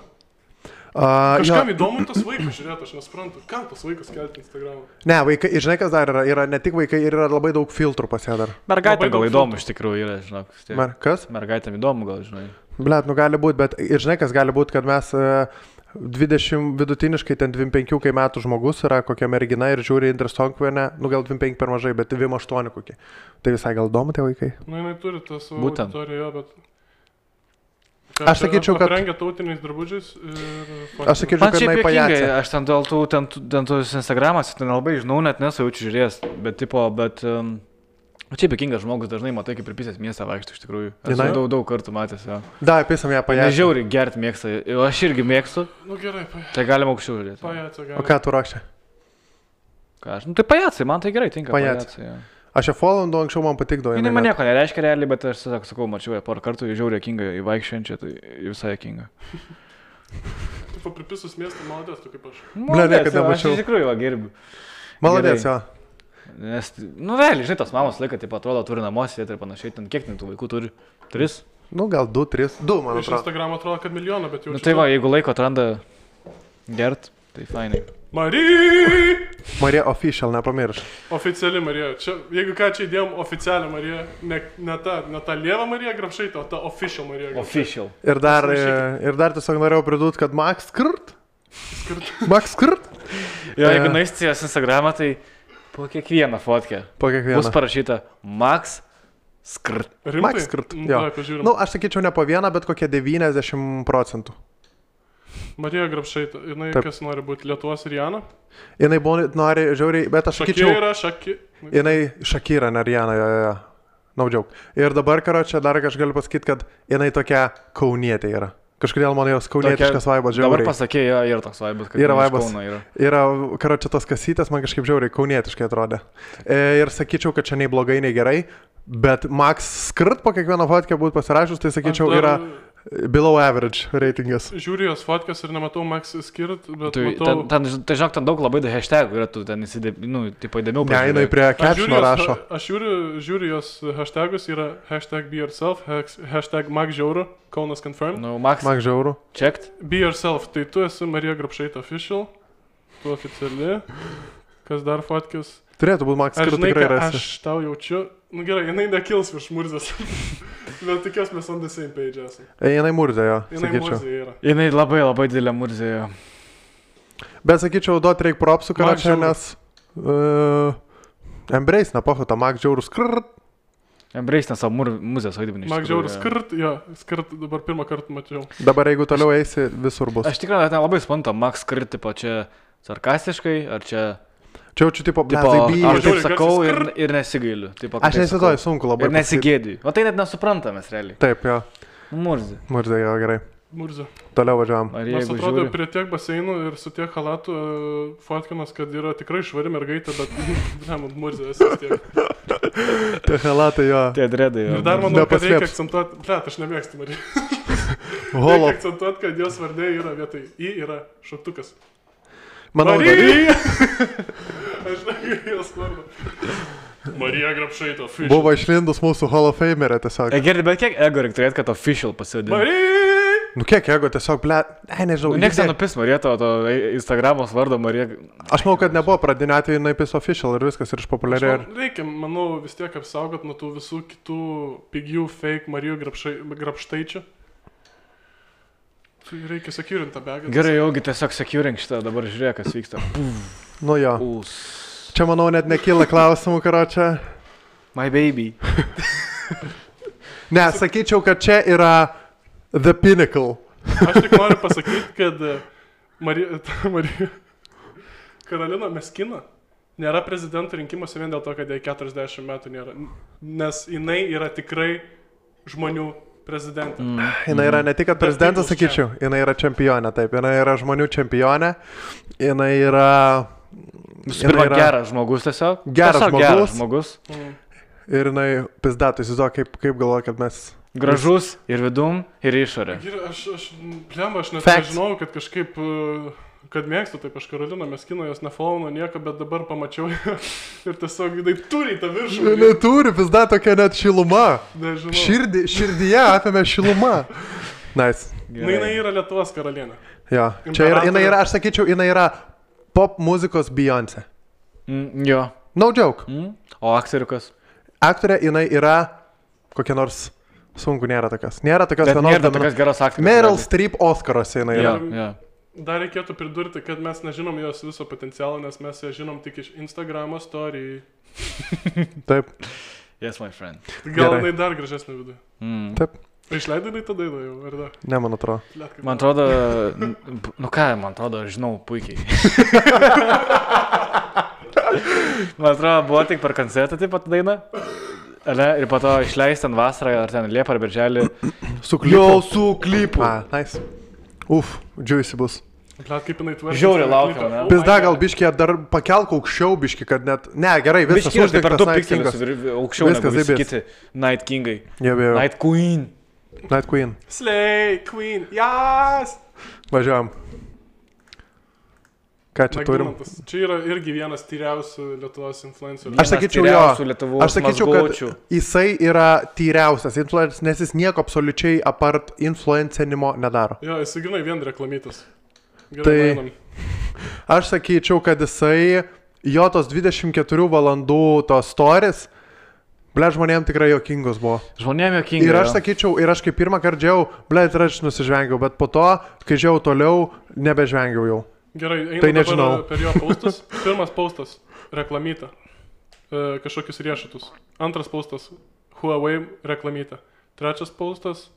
Kažkam įdomu tas vaikas, žiūrėt, aš nesuprantu. Kam tas vaikas kelti Instagram'ą? Ne, vaikai, žinai, kas dar yra? Yra ne tik vaikai, yra labai daug filtrų pas ją dar. Mergaitė gal įdomu iš tikrųjų yra, žinok. Kas? Mergaitėm įdomu gal, žinai. Blet, nu gali būti, bet ir žinai, kas gali būti, kad mes 20 vidutiniškai, ten 25 metų žmogus yra kokia mergina ir žiūri Indrę Stonkvienę, nu gal 25 per mažai, bet 28 kokie. Tai visai gal įdomu tie vaikai? Na, jinai turi tą savo auditoriją, bet... Aš sakyčiau, kad... Aprengia tautiniais drabužiais ir... Aš sakyčiau, kad jinai pajacė. Aš ten dėl tų Instagramas, ten labai žinau, net nesaučiu žiūrės, bet tipo, čia juokingas žmogus dažnai matai, kaip ir pisės miestą vaikšto iš tikrųjų. Aš daug kartų matęs, jo. Da, pisam ją pajacę. Nežiauriai gert mėgsta, aš irgi mėgstu. Nu gerai, pajacė. Tai galima aukščiau žiūrėti. Pajacė galima. O ką tu rakšė? Ką aš, nu tai pajacai, man tai gerai tinka. Pajacė. Aš ją followindu anksčiau man patikdavo. Jinai man nieko nereiškia realiai, bet aš sakau, mačiau ją porą kartų, žiauriai juokinga, įvaikščiančią, tai visai juokinga. Tu papripisus miestą, maladės, tu kaip aš. Maladės, aš iš tikrųjų va gerbiu. Maladės, jo. Nes, nu realiai, žinai, tos mamos laiką, taip atrodo, turi namuose ir panašiai, ten kiek tų vaikų turi? 3? Nu, gal 2, 3. 2, man atrodo. Iš Instagram atrodo, kad milijoną, bet jau... Nu tai va, jeigu laiko atranda gert, tai fainai. Marija Official, nepamirš. Oficiali Marija. Čia, jeigu ką čia įdėjom oficialią Mariją, ne ta lieva Marija Grapšaitė, o ta Official Marija Grapšaitė. Official. Ir dar tiesiog norėjau pridūti, kad Max Skrt. Max Skrt. Jo, jeigu naistijos Instagramą, tai po kiekvieną fotkę. Po kiekvieną. Bus parašyta Max Skrt. Rimtai? Max Skrt, jo. Nu, aš sakyčiau ne po vieną, bet kokie 90%. Marija Grapšaitė, jinai Taip. kas nori būti Lietuvos Rihanna? Jinai nori žiauriai, bet aš sakyčiau... Jinai Shakira, ne Rihanna, jo. No joke. Ir dabar, karočią, dar aš galiu pasakyti, kad jinai tokia kaunietė yra. Kažkodėl man jos kaunietiškas vaibas žiauriai. Dabar pasakė, jo, yra toks vaibas, kad yra vaibas. Yra, karočią, tos kasytės man kažkaip žiauriai kaunietiškai atrodė. Ir sakyčiau, kad čia nei blogai, nei gerai, bet Max Skrt po kiekvieną fotkę būtų pasirašus, tai sakyčiau, yra... Below average reitingas. Žiūriu jos fotkas ir nematau Max Skirt, bet matau... Tai žinok, ten daug labai hashtagų yra, tu ten tipo įdėmiau pažiūrėjai. Ne, jinai prie captiono rašo. Aš žiūriu jos hashtagus, yra hashtag be yourself, hashtag Max Žiauru, Kaunas confirmed. No, Max Žiauru. Checked. Be yourself, tai tu esi Marija Grapšaitė official, tu oficiali, kas dar fotkis. Turėtų būti Max Skrt tikrai rasi. Aš tau jaučiu, nu gerai, jinai nekils virš Murzės, bet tikiuos mes on the same page esame. Jinai Murzė, jo, jinai sakyčiau. Murzė yra. Jinai labai didelė Murzė, jo. Bet sakyčiau, duot reik propsų, kad čia, nes Embrace, nepochu, tą Max Žiaurų Skrt. Embrace, nes savo Murzės vaidmenį. Max Žiaurų Skrt, jo, Skrt dabar pirmą kartą mačiau. Dabar jeigu toliau eisi, visur bus. Aš tikrai ten labai suprantu, Max Skrt, tipo, čia sarkastiškai, ar čia... Čia jaučiu, tipo, aš taip sakau ir nesigailiu. Aš nesitoju, sunku labai. Ir nesigėdiju. O tai net nesuprantamės realiai. Taip, jo. Murzė. Murzė, jo, gerai. Murzė. Toliau važiavam. Nors atrodo, prie tiek baseinų ir su tiek halatų fotkinas, kad yra tikrai švari mergaitė, bet Murzė esi vis tiek. Tie halatai, jo. Tie dredai, jo. Ir dar manau, kad reikia akcentuoti, aš nemėgstu Mariją. Reikia akcentuoti, kad jos vardė yra vietoj I yra šauktukas. Manau, Marija! Aš negaliu jos vardą. Marija Grapšaitė, official. Buvo išlindus mūsų Hall of Famerė tiesiog. Gerai, bet kiek ego reikia turėti, kad official pasivadinti? Marija! Nu kiek ego tiesiog, ble, nežinau. Niekas nenupis Marija, to Instagramos vardo Marija. Aš manau, kad nebuvo pradinio atveju naipis official ir viskas ir išpopuliarėjo. Reikia, manau, vis tiek apsaugot nuo tų visų kitų pigių fake Marijų Grapštaičių. Reikia securint tą begą. Gerai, jaugi tiesiog securink šitą, dabar žiūrėk, kas vyksta. Nu jo. Čia, manau, net nekyla klausimų, karočią. My baby. Ne, sakyčiau, kad čia yra the pinnacle. Aš tik noriu pasakyti, kad Marija Karolina Meskina nėra prezidento rinkimuose vien dėl to, kad jai 40 metų nėra. Nes jinai yra tikrai žmonių prezidentė. Jinai yra ne tik, kad prezidentas, sakyčiau, jinai yra čempionė, taip, jinai yra žmonių čempionė, jinai yra... Pirma, geras žmogus tiesiog. Geras žmogus. Ir jinai pizdatų, įsivaizduoju, kaip galvoju, kad mes... Gražus ir vidum, ir išorė. Aš net nežinau, kad kažkaip kad mėgstu, taip aš Karoliną Meskino, jos nefollow nieko, bet dabar pamačiau ir tiesiog jinai turi tą viršų. Jinai turi, pizda tokia net šiluma. Nežinau. Širdyje apėmė šiluma. Nice. Jinai yra Lietuvos karalienė. Jo, čia yra, jinai yra, aš sakyčiau, jinai yra pop muzikos Beyoncé. Jo. No joke. O aktoriukas? Aktorė, jinai yra kokia nors, sunku, nėra tokios. Nėra tokios Bet vienos. nėra tokios geros aktorės. Meryl Streep Oscaruose jinai yra. Jo. Dar reikėtų pridurti, kad mes nežinom jos viso potencialo, nes mes ją žinom tik iš Instagramo story. Taip. Yes, my friend. Gal jinai dar gražesnė viduje. Taip. Išleidai jinai tada jau, ar da? Ne, man atrodo. Man atrodo, man atrodo, aš žinau puikiai. Man atrodo, buvo tik per koncertą taip pat daina. Ir po to išleisti ten vasarą, ar ten Liepą ar Birželį. Su klipu. Jau su klipu. Nice. Juicy bus. Blet, kaip jinai tvarkė. Žiauriai laukiam, ne? Pizda, gal biškį dar pakelk aukščiau biškį, kad net... Ne, gerai, viskas uždėktas per 2 pikselius. Aukščiau negu visi kiti Night Kingai. Night Queen. Night Queen. Slay Queen. Jas! Važiuojam. Ką čia turim? Čia yra irgi vienas tyriausių Lietuvos influencerių. Aš sakyčiau, aš sakyčiau, kad jisai yra tyriausias influenceris, nes jis nieko absoliučiai apart influencinimo nedaro. Jo, jis grinai vien reklamytas. Tai aš sakyčiau, kad jisai, jo tos 24 valandų tos stories, ble, žmonėm tikrai jokingos buvo. Žmonėm jokingai. Ir aš sakyčiau, ir aš kaip pirmą kartą džiau, ble, ir aš nusižvengiau, bet po to, kai džiau toliau, nebežvengiau jau. Gerai, tai nežinau. Per jo paustus. Pirmas paustas - reklamyta. Kažkokius riešutus. Antras paustas - Huawei reklamyta. Trečias paustas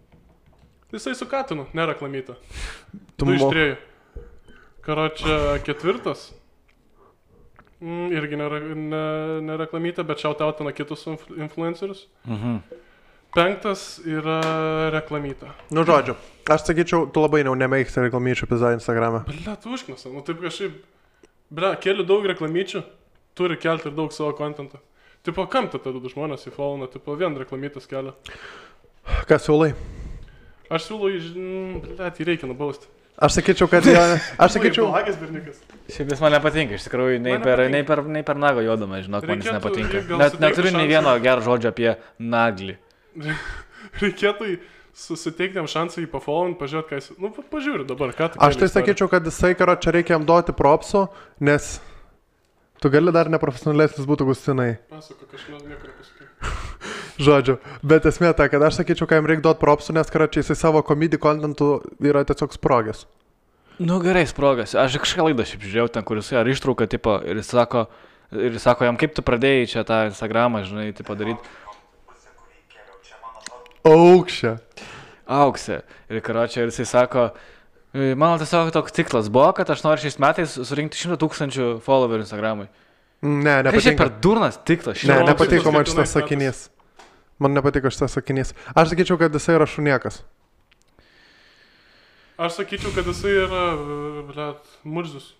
- jisai su katinu, ne reklamyta. 2 iš 3. Karočią ketvirtas - irgi ne reklamyta, bet shoutoutina kitus influencerius. 5 yra reklamyta. Nu, žodžiu, aš sakyčiau, tu labai nemėgsti reklamyčių pizza Instagram'e. Ble, tu užknasa, nu taip kažkaip, ble, keli daug reklamyčių, turi kelti ir daug savo kontentą. Tipo, kam tada žmonės į followną, tipo, vien reklamytas kelia. Ką siūlai? Aš siūlau, ble, tai reikia nubausti. Aš sakyčiau, kad aš sakyčiau... Šiaip jis man nepatinka, iš tikrųjų, nei per nago jodama, žinok, man jis nepatinka. Neturiu nei vieno gero žodžio apie naglį. Reikėtų susiteikti jam šansą jį pafollowint, pažiūrėti, ką jis... Nu, pažiūrė dabar, ką tu... Aš tai sakyčiau, kad jisai, karo, čia reikia jam duoti propsų, nes tu gali dar neprofesionalesnis būtų Gustinai. Pasako, kažkas nieko nepasakai. Žodžiu, bet esmė ta, kad aš sakyčiau, kad jam reikia duoti propsų, nes, karo, čia jisai savo komedijų kontentų yra tiesiog sprogęs. Nu, gerai, sprogęs. Aš kažką laidą šiaip žiūrėjau ten, kur jisai ar ištrauką, tipo, ir jis sako, jam kaip tu pradėjai čia tą Instagramą, žinai, tai padaryti. Auksė. Ir karočią, ir jisai sako, mano tiesiog toks tikslas buvo, kad aš noriu šiais metais surinkti 100 000 followerių Instagramui. Ne, nepatinka. Šiaip per durnas tikslas. Ne, nepatiko man šitas sakinys. Man nepatiko šitas sakinys. Aš sakyčiau, kad jisai yra šuniekas. Aš sakyčiau, kad jisai yra, blet, murzius.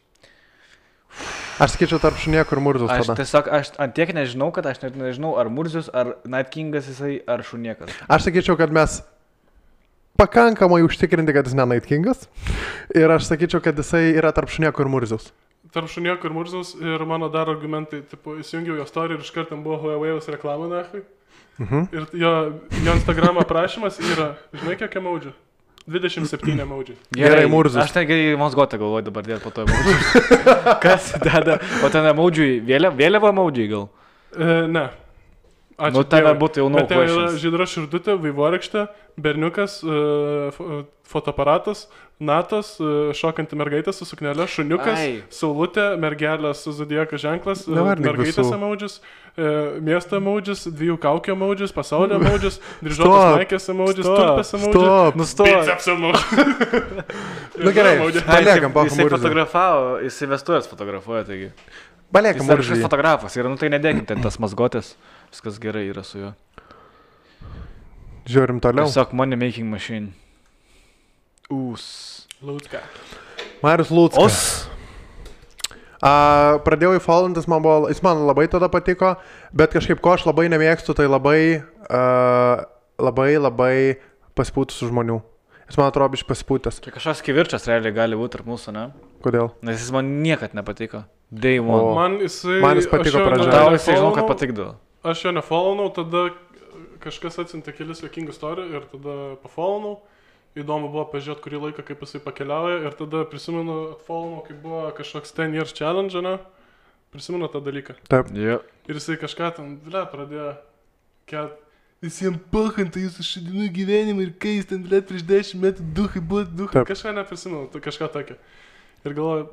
Aš sakyčiau tarp šuniekų ir murzius tada. Aš tiesiog, aš antiek nežinau, kad aš net nežinau, ar murzius, ar Night Kingas jisai, ar šuniekas. Aš sakyčiau, kad mes pakankamai užtikrinti, kad jis ne Night Kingas. Ir aš sakyčiau, kad jisai yra tarp šuniekų ir murzius. Tarp šuniekų ir murzius ir mano dar argumentai, tipo, įsijungiau jo story ir iš karto buvo Huawei'us reklamą nahui. Ir jo Instagram aprašymas yra, žinai, kiek emoji? 27 emoji. Gerai, murzus. Aš ten gerai Mozgotą galvoju dabar dėl po to emoji. Kas deda? O ten emoji, vėliava emoji gal? Ne. Ačiū. Nu, ten būtų jau bet ten yra žydra širdutė, vaivorykštė, berniukas, fotoaparatas, natas, šokanti mergaitė su suknelė, šuniukas, saulutė, mergelė su zodiako ženklas, mergaitės emojis, miesto emojis, 2 kaukio emojis, pasaulio emojis, dryžuotas maikės emojis, tulpės emojis. Stop, nustok. Biceps emojis. Nu gerai, paliekam, jisai fotografavo, jisai vestuvės fotografuoja, taigi. Paliekam, jis yra fotografas, ir nu tai nedėkim ten tas mazgotės. Viskas gerai yra su juo. Žiūrim toliau. Tiesiog money making machine. Lūcka. Marius Lūckas. Pradėjau įfollowantis, jis man labai tada patiko, bet kažkaip ko aš labai nemėgstu, tai labai pasipūtusių žmonių. Jis man atrodo biškai pasipūtęs. Čia kažkas kivirčias realiai gali būti tarp mūsų, ne? Kodėl? Nes jis man niekad nepatiko. Day one. Man jis patiko pradžioje. Tau jisai žinau, kad patikdavo. Aš jo nefollownau, tada kažkas atsiuntė kelis juokingų story ir tada pafollownau. Įdomu buvo pažiūrėti kurį laiką, kaip jisai pakeliauja ir tada prisimenu atfollownau, kaip buvo kažkoks 10 years challenge, ne? Prisimenu tą dalyką. Taip. Yeah. Ir jisai kažką ten, pradėjo kelt. Visiems pahanta jūsų šadinų gyvenimą ir kai jis ten, prieš 10 metų duhai buvo duhai. Kažką neprisimenu, kažką tokio. Ir galvoju,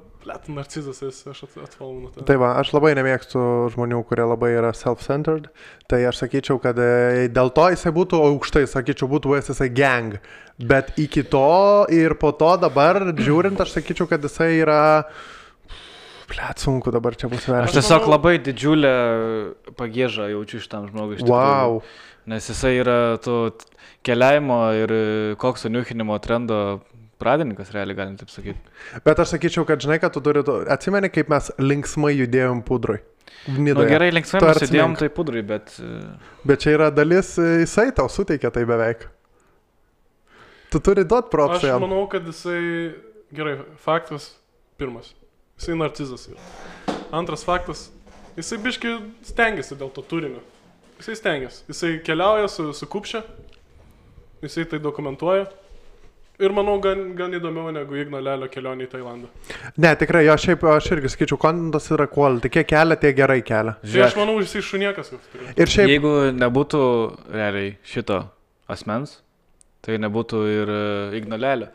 narcizas esi, aš atfollownau tą. Tai va, aš labai nemėgstu žmonių, kurie labai yra self-centered. Tai aš sakyčiau, kad dėl to jisai būtų aukštai, sakyčiau, būtų jisai gang. Bet iki to ir po to dabar, žiūrint, aš sakyčiau, kad jisai yra... Sunku dabar čia bus vertinti. Aš tiesiog labai didžiulę pagiežą jaučiu šitam žmogui. Wow. Nes jisai yra to keliavimo ir kokso niuchinimo trendo pradininkas, realiai galim taip sakyti. Bet aš sakyčiau, kad žinai, kad tu turi... Atsimeni, kaip mes linksmai judėjom pudrui. Nu gerai, linksmai mes judėjom tai pudrui, bet... Bet čia yra dalis, jisai tau suteikia tai beveik. Tu turi duot propsą jam. Aš manau, kad jisai... Gerai, faktas pirmas. Jisai narcizas yra. Antras faktas. Jisai biškai stengiasi dėl to turinio. Jisai stengiasi. Jisai keliauja su kupšia. Jisai tai dokumentuoja. Ir manau, gan įdomiau negu Igno Lelio kelionė į Tailandą. Ne, tikrai, aš irgi sakyčiau, kontentas yra quality. Kiek kelia, tiek gerai kelia. Tai aš manau, jisai šuniekas jau turi. Ir šiaip... Jeigu nebūtų realiai šito asmens, tai nebūtų ir Igno Lelio.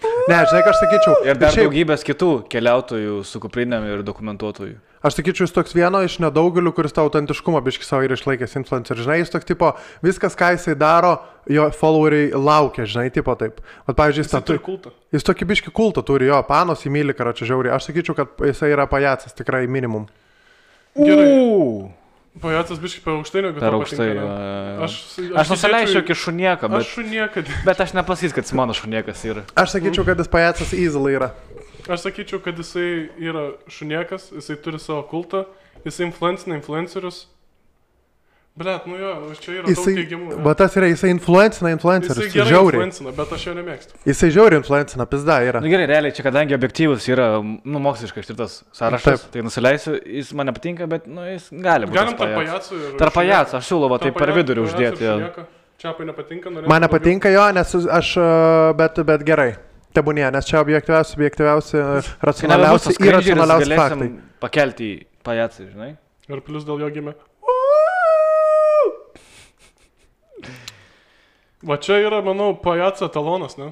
Ne, žinai, ką aš sakyčiau. Ir dar daugybės kitų keliautojų su kuprinėm ir dokumentuotojų. Aš sakyčiau, jis toks vieno iš nedaugelių, kuris tą autentiškumą biškai savo ir išlaikęs influencer. Žinai, jis toks tipo, viskas, ką jisai daro, jo followeriai laukia, žinai, tipo taip. Vat, pavyzdžiui, jis turi kultą. Jis tokį biškai kultą turi, jo, panos įmylį, karočią žiauriai. Aš sakyčiau, kad jisai yra pajacas, tikrai minimum. Gerai. Pajacas biškai per aukštai, negu per aukštai. Aš nusileisiu iki šunieka, bet... Aš šunieka. Bet aš nepasys, kad jis mano šuniekas yra. Aš sakyčiau, kad jis pajacas easily yra. Aš sakyčiau, kad jisai yra šuniekas, jisai turi savo kultą, jisai influencerius. Blet, nu jo, čia yra daug teigiamų. Bet tas yra, jisai influencerius. Jisai gerai influencina, bet aš jo nemėgstu. Jisai žiauriai influencina, pizda yra. Nu gerai, realiai, čia kadangi objektyvus yra, nu, moksliškai ištirtas sąrašas, tai nusileisiu, jis man nepatinka, bet, nu, jis gali būti. Galim tarp pajacų ir... Tarp pajacų, aš siūlau, tai per vidurį uždėti. Čiapai nepatinka, norėčiau... Man nepatinka jo, nes aš, bet gerai. Tebūnie, nes čia objektyviausi, racionaliausi ir racionaliausi faktai. Pakelti į pajacą, žinai. Ir plius dėl jo gimė. Va čia yra, manau, pajaco talonas, ne?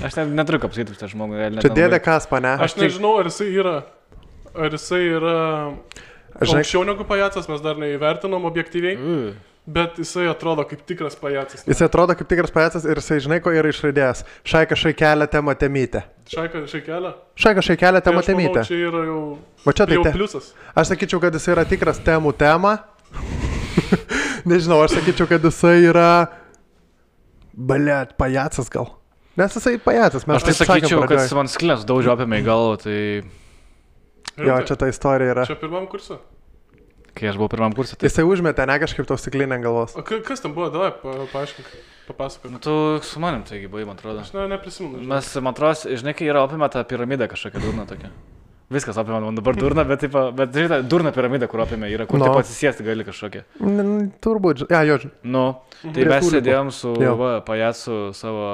Aš neturiu ką pasakyti už tą žmogų. Čia dėdė Kaspa, ne? Aš nežinau, ar jisai yra aukščiau negu pajacas, mes dar neįvertinom objektyviai. Bet jisai atrodo kaip tikras pajacas. Jisai atrodo kaip tikras pajacas ir jisai žinai, ko yra išraidėjęs. Šaika šaikelė tema temytė. Šaika šaikelė? Šaika šaikelė tema temytė. Čia yra jau, jau pliusas. Aš sakyčiau, kad jisai yra tikras temų tema. Nežinau, aš sakyčiau, kad jisai yra... Blet, pajacas gal. Nes jisai pajacas. Aš tai sakyčiau, kad jis man sklės daužio apėmė į galvą, tai... Jo, čia ta istorija yra. Čia pirmam kursui? Kai aš buvau pirmam kursui. Tai... Jisai užmetė, ne kažkaip to stiklinę galvos. O kas tam buvo, davai, paaiškink, papasakok. Nu, tu su manim taigi buvai, man atrodo. Aš neprisimenu. Mes, man atrodo, žinai, kai yra apima tą piramidą kažkokią durną tokią. Viskas apima, man dabar durna, bet žinai, durna piramida, kur apima yra, kur taip atsisėsti gali kažkokią. Turbūt, jo. Nu, tai mes sėdėjom su pajacu savo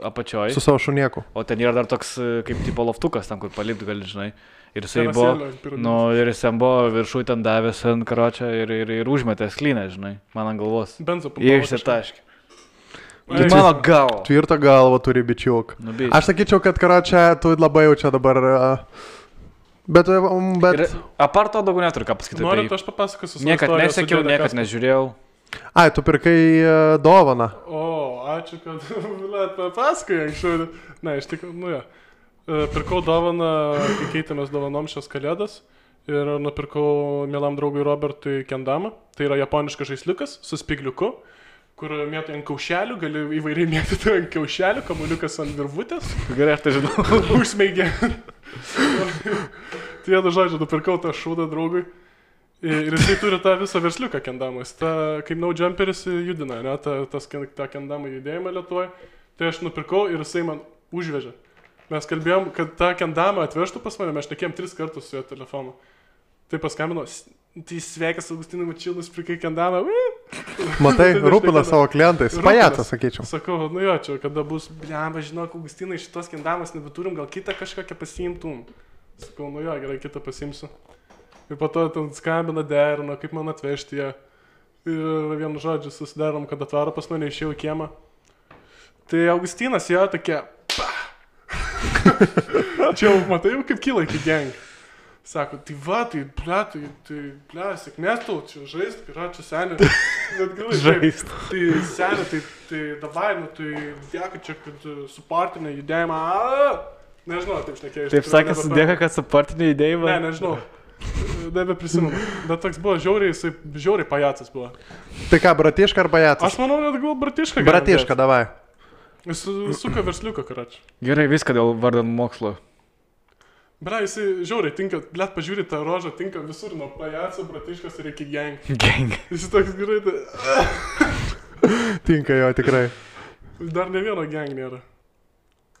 apačioj. Su savo šunieku. O ten yra dar toks kaip tipo loftukas, ten kur palipti gali, žinai. Ir jisai buvo, nu, ir jisai buvo viršui ten davęs ant karočią ir užmetė sklynę, žinai, man ant galvos. Benzo papavo. Išsitaškė. Mano galva. Tvirtą galvą turi bičiuk. Aš sakyčiau, kad karočią tu labai jau čia dabar... Bet... Apart to daugiau neturiu ką pasakyti. Norit, aš papasakosiu. Niekad nesekiau, niekad nežiūrėjau. Ai, tu pirkai dovaną. O, ačiū, kad papasakai anksčiau. Ne, iš tikrųjų, nu jo. Pirkau dovaną, kai keitėmės dovanom šios kalėdas ir nupirkau mielam draugui Robertui kendamą. Tai yra japoniškas žaisliukas su spigliuku, kur mėtai ant kaušelių, gali įvairiai mėtyti ant kaušelių, kamuliukas ant virvutės. Gerai, aš tai žinau. Užsmeigė. Tai vienu žodžiu, nupirkau tą šūdą draugui Ir jisai turi tą visą versliuką kendamą. Jis kaip no jumperis judina, ne, tą kendamą judėjimą Lietuvoje. Tai aš nupirkau ir jisai man užvežė. Mes kalbėjom, kad tą kendamą atvežtų pas mane, mes šnekėjom 3 kartus su jo telefonu. Tai paskambino, tai sveikas Augustinai Mačilus, prikai kendamą. Matai, rūpina savo klientais. Pajacas, sakyčiau. Sakau, nu jo, čia kada bus, blemba, žinok, Augustinai, šitos kendamas nebeturim, gal kitą kažkokią pasiimtum. Sakau, nu jo, gerai, kitą pasiimsiu. Ir po to ten skambina, derino, kaip man atvežti ją. Ir vienu žodžiu susidarom, kad atvaro pas mane, išėjau į kiemą. Tai Augustinas jo tokia, čia jau matai, kaip kyla iki gang. Sako, tai va, tai ble, sėkmės tau, čia žaist, yra čia senė. Žaist. Tai senė, tai davai, nu tai dėka čia, kad supartinė judėjimą. Nežinau, taip šnekėjau. Taip sakė, sudėka, kad supartinė judėjimą. Ne, nežinau. Nebeprisimenu. Bet toks buvo žiauriai pajacas buvo. Tai ką, bratiška ar pajacas? Aš manau, net gal bratiška. Bratiška, davai. Jis suka versliuką, karač. Gerai, viską dėl vardan mokslo. Bra, jisai žiauriai tinka, blėt, pažiūrė tą rožą, tinka visur, nuo pajaco, bratiškas ir iki gang. Gang. Jis toks gerai, Tinka jo, tikrai. Dar ne vieno gang nėra.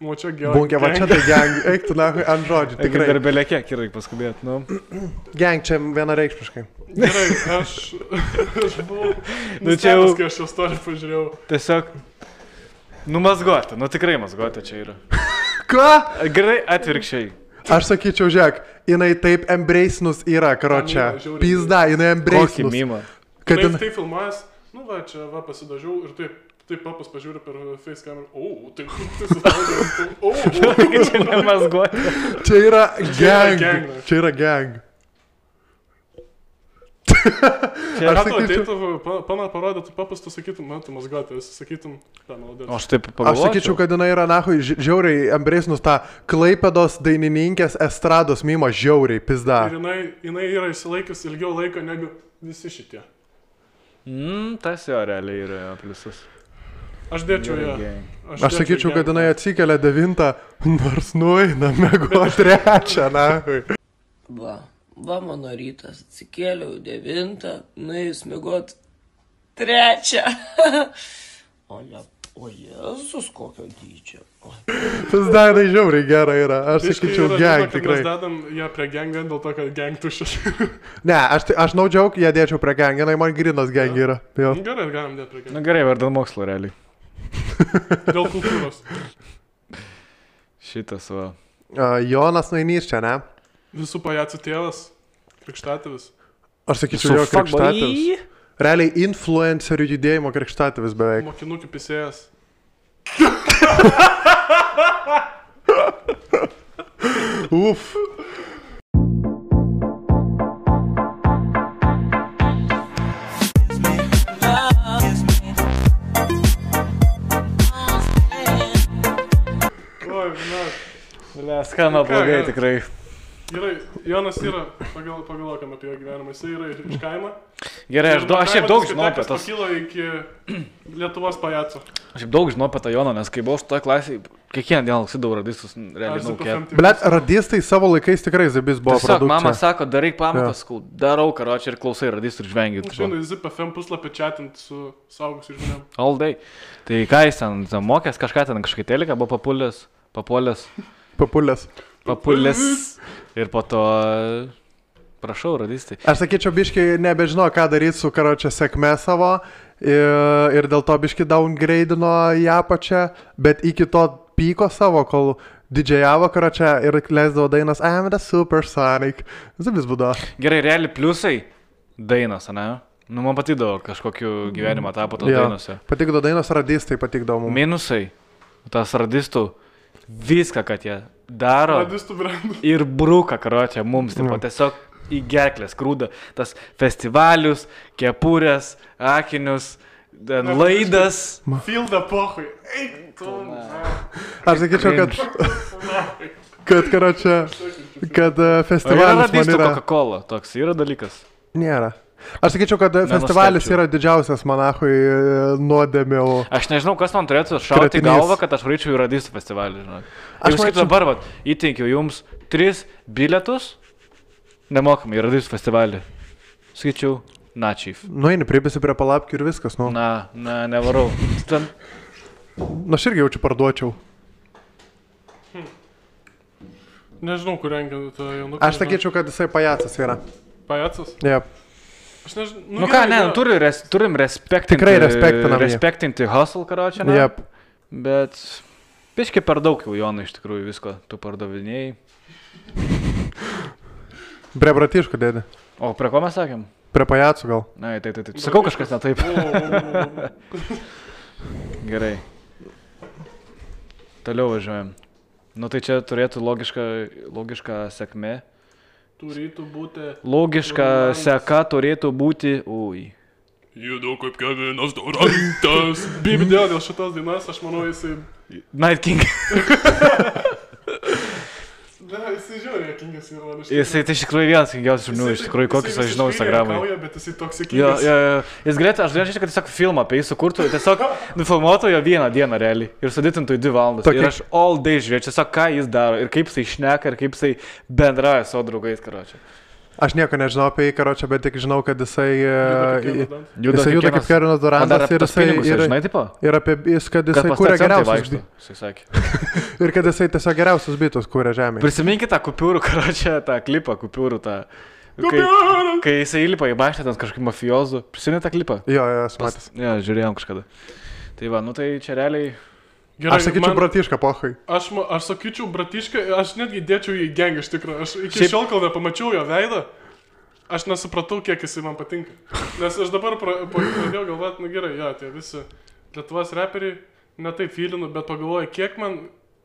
O čia gang. Bunkė, va čia tai gang, eik tu nahui ant žodžių, tikrai. Dar belė kiek ir reikia paskubėti, nu. Gang čia vienareikšmiškai. Gerai, aš buvau nustebęs, kai aš šios storį pažiūrėjau. Tiesiog, nu mazgoti, nu tikrai mazgoti čia yra. Ką? Gerai, atvirkščiai. Aš sakyčiau, žiūrėk, jinai taip embracinus yra, karočia. Pizda, jinai embracinus. Kokį mimą. Kad tai filmuojas, nu va, čia va pasidažiau ir taip papas pažiūrė per face kamerą. Tai čia nemazgoti. Čia yra gang. Čia yra gang. Aš sakyčiau, parodytų papas, tu sakytum, man tu mazgoti, visi sakytum, ką naudėt. Aš taip pagalvočiau. Aš sakyčiau, kad jinai yra, nahui, žiauriai embracinus tą Klaipėdos dainininkės estrados mimą žiauriai, pizda. Ir jinai yra įsilaikius ilgiau laiko negu visi šitie. Tas jo realiai yra pliusas. Aš dėčiau ją. Aš sakyčiau, kad jinai atsikelia 9, nors nueina mėgo 3, nahui. Va mano rytas, atsikėliau 9, nuėjus mėgot 3. O Jėzus, kokio dydžio. Tas dainai žiauriai gerai yra, aš sakyčiau gang tikrai. Mes dedam ją prie gangą dėl to, kad gang tuščias. Ne, aš no joke, ją dėčiau prie gang, jinai man grinas gang yra. Gerai, galim dėti prie gang. Na gerai, vardan mokslo realiai. Dėl kultūros. Šitas va. Jonas Nainys čia, ne? Visų pajacų tėvas, krikštatėvis. Aš sakyčiau, jo krikštatėvis. Realiai influencerių judėjimo krikštatėvis beveik. Mokinukų pisėjas. Uf. Skamba blogai tikrai. Gerai, Jonas yra, pagalvokam apie jo gyvenimą, jis yra iš kaimo. Gerai, aš šiaip daug žinau apie tas. Pakilo iki Lietuvos pajaco. Aš šiaip daug žinau apie tą Joną, nes kai buvau šitoje klasėje, kiekvieną dieną laksydavau radistus, realiai naukėt. Blet, radistai savo laikais tikrai Zibis buvo produkcija. Tiesiog mama sako, daryk pamatas, darau karočią ir klausai radistų ir žvengiu. Aš žinau, Zip FM puslapį chatint su saugusiu žmonėm. All day. Tai ką jis ten mokės, kažką ten kažkai teliką buvo papulės ir po to prašau radistai. Aš sakyčiau, biški nebežino, ką daryti su karočia sėkme savo ir dėl to biški downgrade'ino ją pačią, bet iki to pyko savo, kol didžiajavo karočia ir leisdavo dainas I'm the Supersonic. Zibis būdo. Gerai, realiai pliusai dainas, ne? Nu, man patydavo kažkokiu gyvenimo etapu tos dainuose. Patikdavo dainos, radistai patikdavo mums. Minusai, tas radistų, viską, kad jie daro ir bruka, karočią, mums, taip pat tiesiog į gerklės krūdą, tas festivalius, kepurės, akinius, laidas. Fildą pohui. Aš sakyčiau, kad karočią, kad festivalis man radistų yra... Coca-Cola, toks yra dalykas? Nėra. Aš sakyčiau, kad festivalis yra didžiausias manachui nuodėmių. Aš nežinau, kas man turėtų šauti į galvą, kad aš varyčiau į radistų festivalį. Aš kaip dabar, įteikiau jums 3 bilietus nemokamai į radistų festivalį. Sakyčiau, Chief. Nueini, pribėsi prie palapkių ir viskas, nu. Nevarau. Ten... Na, aš irgi jaučiu parduočiau. Nežinau, kur rengia tą jaunuką. Aš sakyčiau, kad jisai pajacas yra. Pajacas? Jep. Aš nežinau. Nu ką, ne, turim respektinti. Tikrai respektinam jį. Respektinti hustle, karočią, ne? Jep. Bet biškai per daug jau, Jonai, iš tikrųjų visko tu pardavinėjai. Prie bratiškų dėdė. O prie ko mes sakėm? Prie pajacų gal. Na, tai. Sakau kažkas ne taip. Gerai. Toliau važiuojam. Nu tai čia turėtų logiška sekmė. Turėtų būti... Logiška seka turėtų būti... Ui. Judu kaip Kevinas Durantas. Bibidėl dėl šitos dainos, aš manau, jisai... Night King. Ne, jisai žiūrė, Kingas yra. Jisai tai iš tikrųjų vienas kingiausių žmonių, iš tikrųjų, kokius aš žinau Instagramui. Bet jisai toks Kingas. Jis galėtų, aš galėčiau, kad tiesiog filmą apie jį sukurtų, tiesiog nufilmuotų jo vieną dieną realiai ir sudėtintų į 2 valandas. Ir aš all day žiūrėčiau, tiesiog ką jis daro ir kaip jisai šneka ir kaip jisai bendrauja savo draugais, karočią. Aš nieko nežinau apie jį, karočią, bet tik žinau, kad jisai juda kaip Kevinas Durantas ir kad jisai kūrė geriausius. Ir kad jisai tiesiog geriausius bitus kūrė žemėje. Prisiminkite tą kupiūrų, karočią, tą klipą, kupiūrų tą. Kai jisai įlipa į mašiną, ten kažkaip mafijozų. Prisiminė tą klipą? Jo, esu matęs. Jo, žiūrėjom kažkada. Tai va, nu tai čia realiai... Gerai, aš sakyčiau bratišką, pohai. Aš sakyčiau bratišką, aš netgi dėčiau į gengą iš tikrųjų. Aš iki šiol, kol nepamačiau jo veidą, aš nesupratau, kiek jisai man patinka. Nes aš dabar pradėjau galvoti, nu gerai, jo, tie visi Lietuvos reperiai, ne taip feelinu, bet pagalvoju, kiek man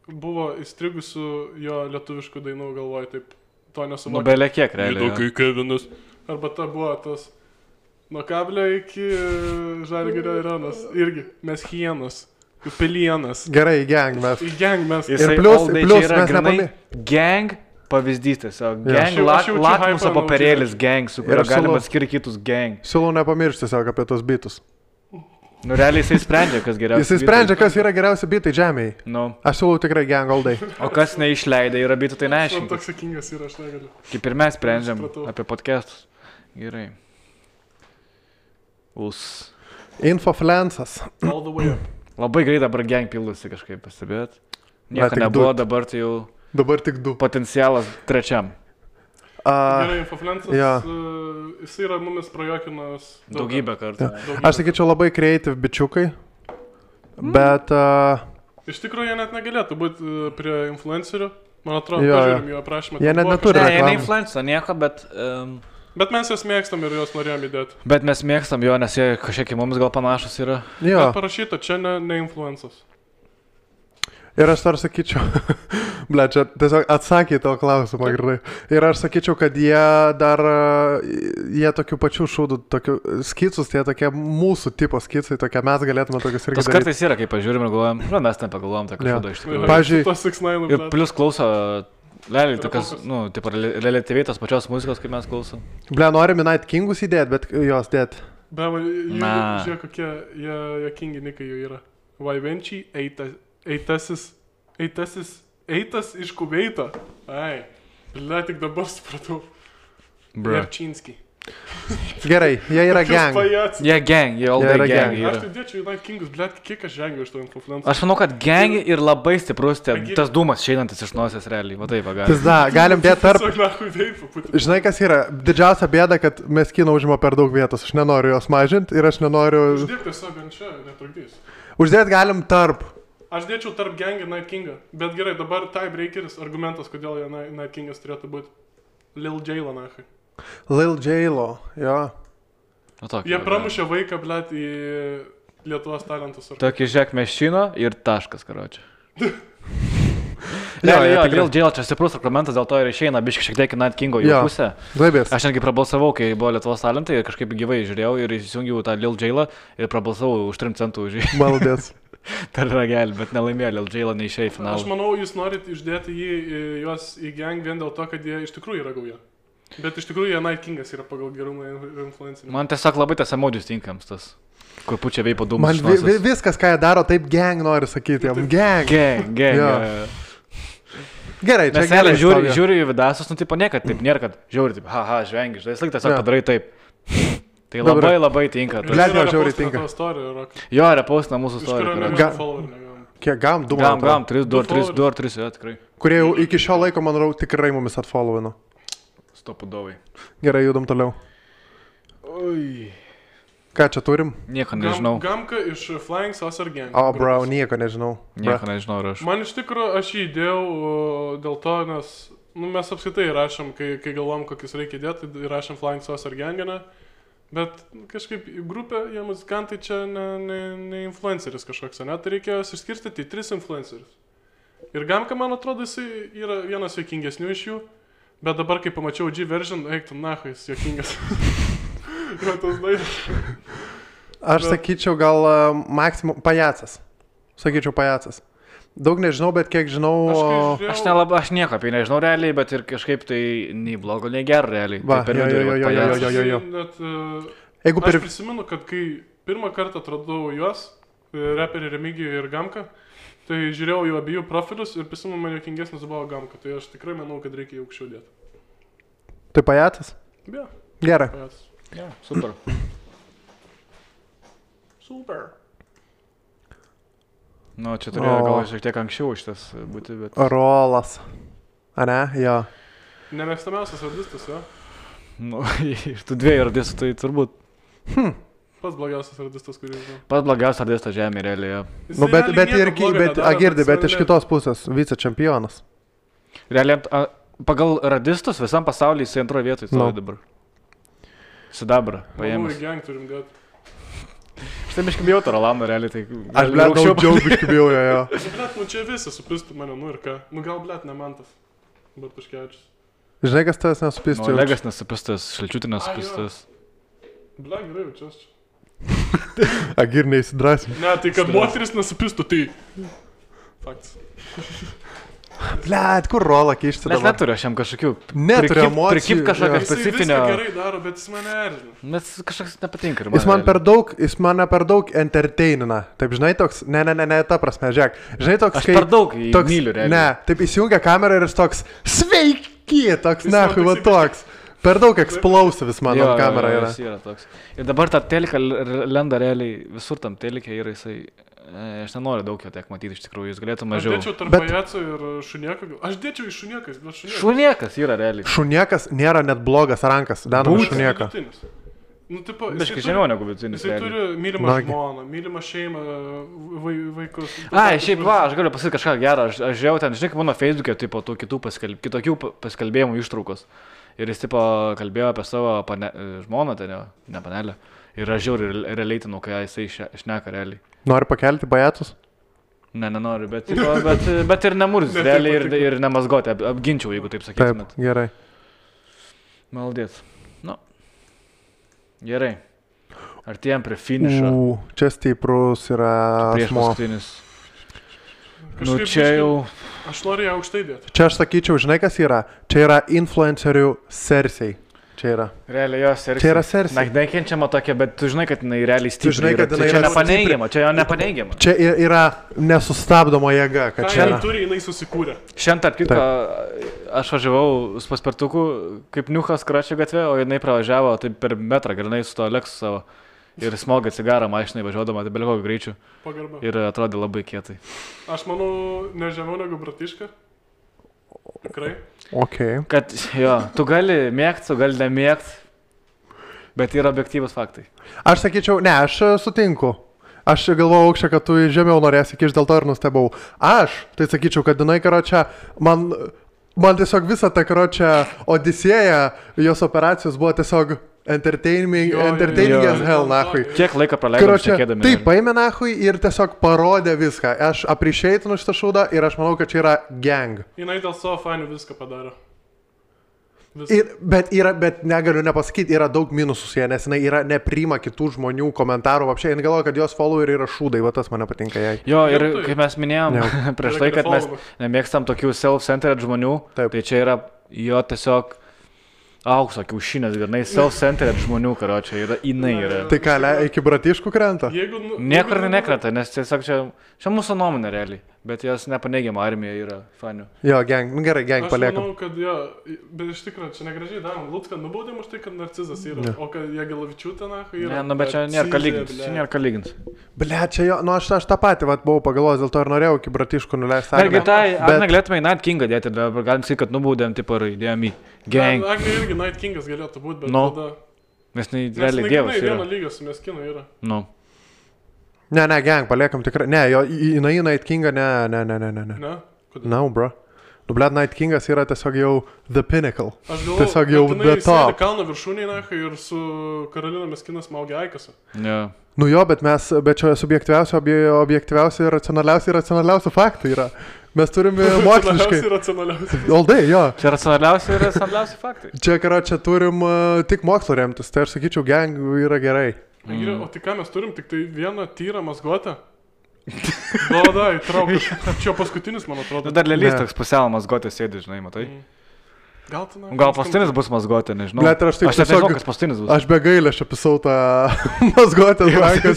buvo įstrigusių jo lietuviškų dainų, galvoju, taip to nesuvokiu. Nu, belė kiek, realiai. Kai Kevinas. Arba ta buvo tas, nuo kablio iki Žalgirio arenos, irgi, mes hienos. Pelienas. Gerai, į gang mes. Į gang mes. Ir plius mes nepamė. Gang pavyzdys tiesiog. Gang lakmuso papirėlis gang, su kurio galima skirti kitus gang. Siūlau nepamiršti tiesiog apie tos bitus. Nu, realiai jisai sprendžia, kas geriausia. Jisai sprendžia, kas yra geriausi bitai žemėje. Nu. Aš siūlau tikrai gang all day. O kas neišleidai yra bitų, tai neaiškiai. Man toks sakingas yra, aš negaliu. Kaip ir mes sprendžiam apie podcastus. Gerai. Infofluencas. All the way up. Labai greit dabar gang pildosi kažkaip, pastebėt. Nieko nebuvo, dabar tai jau... Dabar tik 2. Potencialas 3. Gerai, Infofluencas, jis yra mumis prajokinas... Daugybę kartų. Aš sakyčiau labai creative bičiukai, bet... Iš tikrųjų, jie net negalėtų būti prie influencerių. Man atrodo, pažiūrim jų aprašymą. Jie net neturi reklamų. Ne, ne influencer, nieko, bet... Bet mes juos mėgstam ir juos norėjom įdėti. Bet mes mėgstam jo, nes jie kažkiek į mums gal panašus yra. Jo. Bet parašyta, čia ne influencas. Ir aš dar sakyčiau, ble, čia tiesiog atsakė tavo klausimą gerai. Ir aš sakyčiau, kad jie tokių pačių šūdų, tokių skicus, tie tokie mūsų tipo skicai, tokie mes galėtume tokius irgi daryti. Tas kartais yra, kai pažiūrim ir galvojam, mes ten pagalvojam tą šūdą iš tikrųjų. Pavyzdžiui, ir plus klauso... Realiai, tokias, nu, taip, relatyviai tos pačios muzikos, kaip mes klausom. Ble, norim Night Kingus įdėti, bet jos dėt. Be, žiūrėk, kokie jokingi nikai jų yra. Vaivenčiai, eitas iš Kuveito. Ai, ble, tik dabar supratau. Jarčinski. Gerai, jie yra gang. Jie gang, jie all day gang yra. Aš tai dėčiau į Night Kingus, ble, kiek aš žengiu iš to influencer. Aš manau, kad gang ir labai stiprus tas dūmas šeinantis iš nosies realiai, va taip, galim. Galim dėti tarp... Žinai, kas yra? Didžiausia bėda, kad mes kino užima per daug vietos. Aš nenoriu jos mažinti ir aš nenoriu... Uždėti tiesiog ant čia, netrukdys. Uždėti galim tarp. Aš dėčiau tarp gang ir Night Kingą. Bet gerai, dabar tiebreakeris, argumentas, kodėl Night Kingas turėtų būti. Lil J-lo, nahai. Lil J-lo, jo. Jie pramušė vaiką, blėt, į Lietuvos talentus. Tokį žiek mešino ir taškas, karočią. Lil J-lo čia stiprus argumentas, dėl to ir išeina biškai šiek tiek į Night Kingo jų pusę. Aš netgi prabalsavau, kai buvo Lietuvos talentai ir kažkaip gyvai žiūrėjau ir įsijungiau tą Lil J-lo ir prabalsavau už 3 centų už jį. Maldės. Per ragelį, bet nelaimėjo, Lil J-lo neišėjo į finalą. Aš manau, jūs norit išdėti juos į gang vien dėl to, kad jie iš tikrųjų yra gauja. Bet iš tikrųjų jie Night Kingas yra pagal gerumą influencerį. Man tiesiog labai tas emodžius tinkams, tas, kur pučia veipo dūmus. Man viskas, ką jie daro, taip gang nori sakyti. Gang. Gerai, čia gerai. Žiūri į vidasus, nu tipo niekad taip nėra, kad žiūri taip, haha, žvengi, žinai, tiesiog padarai taip. Tai labai tinka. Blet, man žiauriai tinka. Jo, repostina mūsų istorija. Kiek gam? 2 Gam, 2 ar 3, jo, tikrai. Kurie jau iki šio laiko, manau, tikrai mumis atfollowino. Stopudovai. Gerai, judam toliau. Oi. Ką čia turim? Nieko nežinau. Gamka iš Flying Saucer Gang. O, bro, nieko nežinau. Nieko nežinau ir aš. Man iš tikrųjų, aš jį įdėjau dėl to, nes mes apskaitai rašom, kai galvom, kokius reikia įdėti, tai rašom Flying Saucer Ganginą. Bet kažkaip grupė, jie muzikantai čia ne influenceris kažkoks, ne? Tai reikėjo išskirstyti į 3 influencerius. Ir Gamka, man atrodo, jisai yra vienas juokingesnių iš jų. Bet dabar, kai pamačiau G version, eik tu nahui, jis juokingas. Yra tas dainas. Aš sakyčiau gal maksimum pajacas. Sakyčiau pajacas. Daug nežinau, bet kiek žinau... Aš nieko apie nežinau realiai, bet ir kažkaip tai nei blogo, nei gero realiai. Va, jo. Aš prisimenu, kad kai pirmą kartą atradau juos, reperį Remigijų ir Gamką, tai žiūrėjau jų abiejų profilius ir prisimenu, man juokingesnis buvo Gamka. Tai aš tikrai manau, kad reikia jų aukščiau dėti. Tai pajacas? Ja. Gerai. Ja, super. Super. Nu, čia turėjo gal šiek tiek anksčiau šitas būti, bet... Rolas. A ne? Jo. Nemėgstamiausias radistas, jo? Nu, iš tų 2 radistų tai turbūt... Pats blogiausias radistas, kurį žinau. Pats blogiausias radistas žemė, realiai, jo. Nu, bet iš kitos pusės, vicečempionas. Realiai, pagal radistus visam pasaulyje jisai antroje vietoje stovi dabar. Sidabra paėmęs. Manau, į gang turim dėti. Štai biškai bijau to Rolando, realiai, tai... Aš, blet, daug biškai bijau, jo. Blet, čia visi supistų mane, nu ir ką. Nu gal, blet, ne Mantas. Bartuškevičius. Žinai, kas tavęs nesupistų? Nu, Olegas nesupistas, Šalčiutė nesupistas. Blet, gerai, čia aš čia. Agir neįsidrasime. Ne, tai kad moteris nesupistų, tai... Faktas. Blet, kur rolą keišti dabar? Mes neturiu aš jam kažkokių... Neturiu emocijų. Prikip kažkokią specifinę... Jis viską gerai daro, bet jis mane erzina. Nes kažkoks nepatinka. Jis mane per daug entertainina. Taip, žinai, toks... Ne, ta prasme, žiūrėk. Žinai, toks... Aš per daug jį myliu, realiai. Ne, taip įsijungia kamerą ir jis toks... Sveiki! Toks, nahui, va toks. Per daug explosivis mano kamera yra. Yra toks. Ir dabar tą teliką lenda realiai, visur tam telikė yra jisai... Aš nenoriu daug jo tiek matyti, iš tikrųjų, jis galėtų mažiau. Aš dėčiau tarp pajaco ir šunieko. Aš dėčiau į šuniekas, bet šuniekas. Šuniekas yra realiai. Šuniekas nėra net blogas rankas, danam šunieką. Nu, tipo, biškai žemiau negu vidutinis. Jisai turi mylimą žmoną, mylimą šeimą, vaikus. Šiaip va, aš galiu pasakyti kažką gerą. Aš žiūrėjau ten, žinai, kaip mano Facebook'e, tipo, tų kitokių paskalbėjimų ištraukos. Ir jis, tipo, kalbėjo apie savo žmoną, ten, ne panelę. Ir aš žiauriai realiaitinau, kai jisai šneka realiai. Nori pakelti pajacus? Ne, nenoriu, bet ir nemurz, realiai ir nemazgoti, apginčiau, jeigu taip sakytumėt. Taip, gerai. Maldėt. Nu, gerai. Artėjom prie finišo. Čia stiprus yra prieš paskutinis. Nu, čia jau... Aš noriu ją aukštai dėti. Čia aš sakyčiau, žinai kas yra? Čia yra influencerių Cersei. Čia yra. Realiai jos Cersei. Čia yra Cersei. Na, nekenčiama tokia, bet tu žinai, kad jinai realiai stipri. Čia nepaneigiama, čia jo nepaneigiama. Čia yra nesustabdoma jėga, kad čia yra. Turi, jinai susikūrė. Šiandien, tarp kitko, aš važiavau su paspirtuku kaip niuchas Kračio gatvė, o jinai pravažiavo taip per metrą, grinai su to Lexus savo. Ir smogė cigarą mašinai važiuodama, tai belio kokio greičiu. Pagarba. Ir atrodė labai kietai. Aš manau, ne žemiau negu Bratiška. Tikrai. Okay. Kad jo, tu gali mėgti, tu gali nemėgti, bet yra objektyvus faktai. Aš sakyčiau, ne, aš sutinku. Aš galvojau aukščiau, kad tu žemiau norėsi kišti, dėl to ir nustebau. Aš, tai sakyčiau, kad jinai, karočią, man tiesiog visą tą, karočią, Odisėją, jos operacijos buvo tiesiog entertaining as hell, nahui. Kiek laiko praleidom šnekėdami. Taip, paėmė nahui ir tiesiog parodė viską. Aš appreciate'inu šitą šūdą ir aš manau, kad čia yra gang. Jinai dėl savo fanių viską padaro. Bet negaliu nepasakyti, yra daug minusus jie, nes jinai nepriima kitų žmonių komentarų. Apšiai, jin galvoja, kad jos followeriai yra šūdai, va tas mane patinka jai. Jo, ir kaip mes minėjom prieš tai, kad mes nemėgstam tokių self-centered žmonių, tai čia yra jo tiesiog aukso kiaušinės, grinai self-centered žmonių, karočią, jinai yra. Tai ką, iki Bratiškų krenta? Niekur nekrenta, nes tiesiog čia mūsų nuomonė realiai. Bet jos nepaneigiama armija yra fanių. Jo, gang, nu gerai, gang paliekam. Aš manau, kad jo, bet iš tikrųjų, čia negražiai darom. Lucką nubaudėm už tai, kad narcizas yra, o kad Jagelavičiūtė, yra... Ne, nu bet čia nėra ką lygins. Ble, čia jo, nu aš tą patį buvau pagalvojęs, dėl to ir norėjau iki Bratiškų nuleisti. Argi tai, ar negalėtume į Night Kingą dėti, dabar galim sakyti, kad nubaudėm, tipo, įdėjom į gang. Agnė irgi Night Kingas galėtų būti, bet tada... Nes realiai dievas yra. Vieno lygio su Meskinu yra. Nu. Ne, gang, paliekam tikrai. Ne, jo, į Night Kingą, ne. Ne? Kodėl? No, bro. Nu, blėt, Night Kingas yra tiesiog jau the pinnacle. Aš galvoju, tiesiog jau the top. Kalno viršūnėje ir su Karolina Meskinas maugia Aikasą. Ne. Nu jo, bet čia objektyviausi ir racionaliausi faktai yra. Mes turime moksliškai. Aldai, jo. Čia racionaliausi faktai. Čia turim tik mokslo remtis, tai aš sakyčiau, gang yra gerai. O tai ką mes turim, tik tai vieną tyrą mazgotę? Gal, įtrauk. Čia paskutinis, man atrodo. Dar lėlys toks pusiau mazgotės sėdi, žinai, matai? Gal paskutinis bus mazgotė, nežinau. Blet, aš nežinau, kas paskutinis bus. Aš be gailę aš apisau tą mazgotės ranką.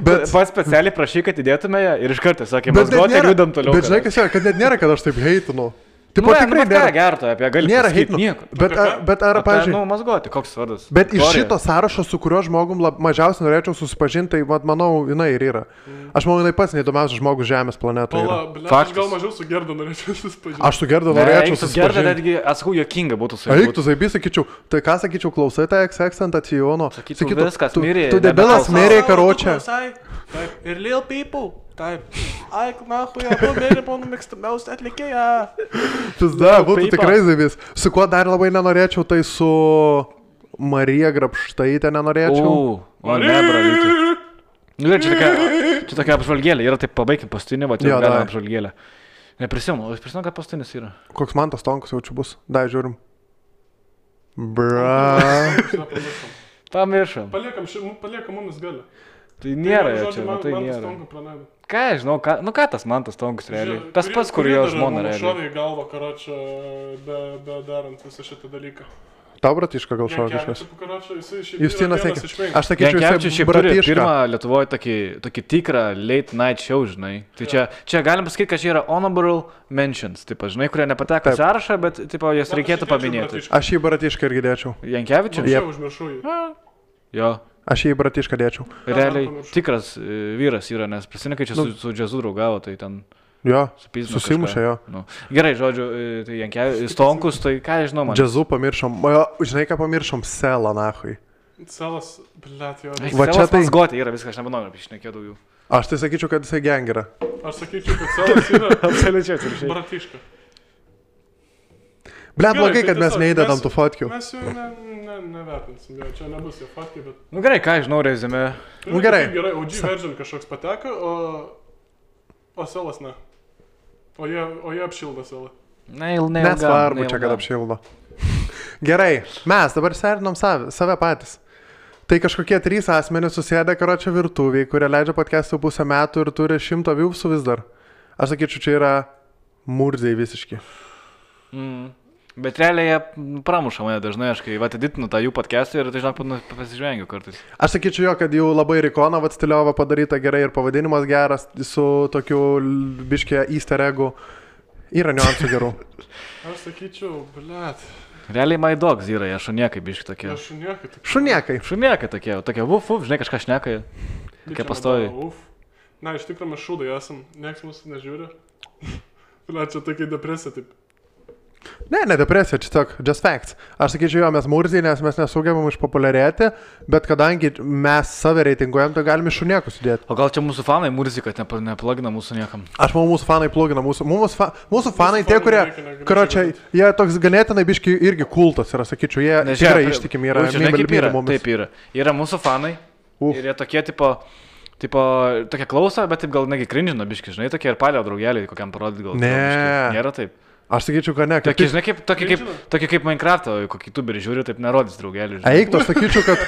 Bet pats specialiai prašy, kad įdėtume ją ir iš karto sakė, mazgotė ir judam toliau. Bet žinai, kas yra, kad net nėra, kad aš taip heitinu. Tipo, tikrai nėra gerto, apie gali pasakyti nieko. Bet ar, pavyzdžiui... Nu, mazgoti, koks vardas. Bet iš šito sąrašo, su kuriuo žmogum mažiausiai norėčiau susipažinti, tai, manau, jinai ir yra. Aš manau, jinai pats neįdomiausias žmogus Žemės planetoje. Aš gal mažiau su Gerda norėčiau susipažinti. Aš su Gerda norėčiau susipažinti. Gerda netgi, atsakau, jokinga būtų su juo. Eik, tu zaibi, sakyčiau, tai ką sakyčiau, klausai tą X-Tentacijono. Sakyčiau, viskas mirė. Tu debilas mirė, karočią. Ir Lil People. Taip. Ai, nahui, abu mėly mano mėgstamiausia atlikėja. Pizda, būtų tikrai zaibys. Su kuo dar labai nenorėčiau, tai su Marija Grabštaitė nenorėčiau. O ne, bravyti. Nu, čia tokia apžvalgėlė, yra taip pabaigim pastinį, va, čia galima apžvalgėlė. Neprisimenu, aš prisimenu, kad pastinis yra. Koks man tas Tonkus jau čia bus? Dai, žiūrim. Bra. Pamiršom. Paliekam mumis galę. Tai nėra jo čia, tai nėra. Ką, žinau, ką tas Mantas Tonkus realiai? Tas pats, kur jo žmona realiai. Šovė į galvą, karočią, be darant visą šitą dalyką. Tau Bratiška gal šovė kažkas? Justinas Eikė. Aš sakyčiau, jisai Bratiška. Pirmą Lietuvoje tokį tikrą late night show, žinai. Tai čia galim pasakyti, kad čia yra honorable mentions, tipo, žinai, kurie nepateko sąrašą, bet tipo, jas reikėtų paminėti. Aš jį Bratišką irgi dėčiau. Jankevičius? Jo. Aš jį Bratišką dėčiau. Realiai tikras vyras yra, nes prisimenu, kai čia su džiazu draugavo, tai ten... Jo, susimušė jo. Nu. Gerai, žodžiu, tai Jankevičius, Tonkus, tai ką žinau man. Džiazu pamiršom, žinai ką pamiršom, Selą, nahui. Selas, blėt, jo. Selas mazgotė yra, viską, aš nebenoriu apišnekėti daugiau. Aš tai sakyčiau, kad jisai gang yra. Aš sakyčiau, kad Selas yra absoliučiai Bratiška. Blet, blogai, kad mes neįdedam tų fotkių. Mes jau nevertinsim, čia nebus jo fotkiai, bet... Nu gerai, ką žinau, rezime. Nu gerai. Gerai, OG version kažkoks pateka, o Selas ne. O jie apšildo Selą. Nesvarbu čia, kad apšildo. Gerai, mes dabar serinom save patys. Tai kažkokie 3 asmenys susėdė karočią virtuviai, kurie leidžia podcast'ų pusę metų ir turi 100 viewsų vis dar. Aš sakyčiau, čia yra murziai visiški. Bet realiai jie pramuša mane dažnai, aš kai atiditinu tą jų podcast'ą ir tai žinok, pasižvengiu kartais. Aš sakyčiau jo, kad jau labai Rikona stiliova padaryta gerai ir pavadinimas geras su tokiu biškė easter eggu. Yra niuansų gerų. Aš sakyčiau, blėt. Realiai My Dogs yra, jie šuniekai biški tokie. Šuniekai tokie vuf, žinai, kažką šneka, tokie pastoviai. Na, iš tikrųjų mes šūdai esam, nieks mūsų nežiūri. Blėt, čia tokia depresija, taip. Ne depresija, čia tiesiog just facts. Aš sakyčiau, jo, mes murziai, nes mes nesugebam išpopuliarėti, bet kadangi mes save reitinguojam, tai galime šuniekus įdėti. O gal čia mūsų fanai murziai, kad neplugina mūsų niekam? Aš manau, mūsų fanai plugina. Mūsų fanai tie, kurie, karočią, jie toks ganėtinai biški irgi kultas yra, sakyčiau, jie tikrai ištikimi yra. Taip yra. Yra mūsų fanai ir jie tokie tipo, tokie klauso, bet taip gal negi cringe'ina biški, žinai, tokie ir palio draugeliai, kokiam parodyti gal. Nėra taip. Aš sakyčiau, kad ne. Tokie kaip Minecraft'o, kokį youtuberį žiūri, taip nerodys draugelį. Eik, aš sakyčiau, kad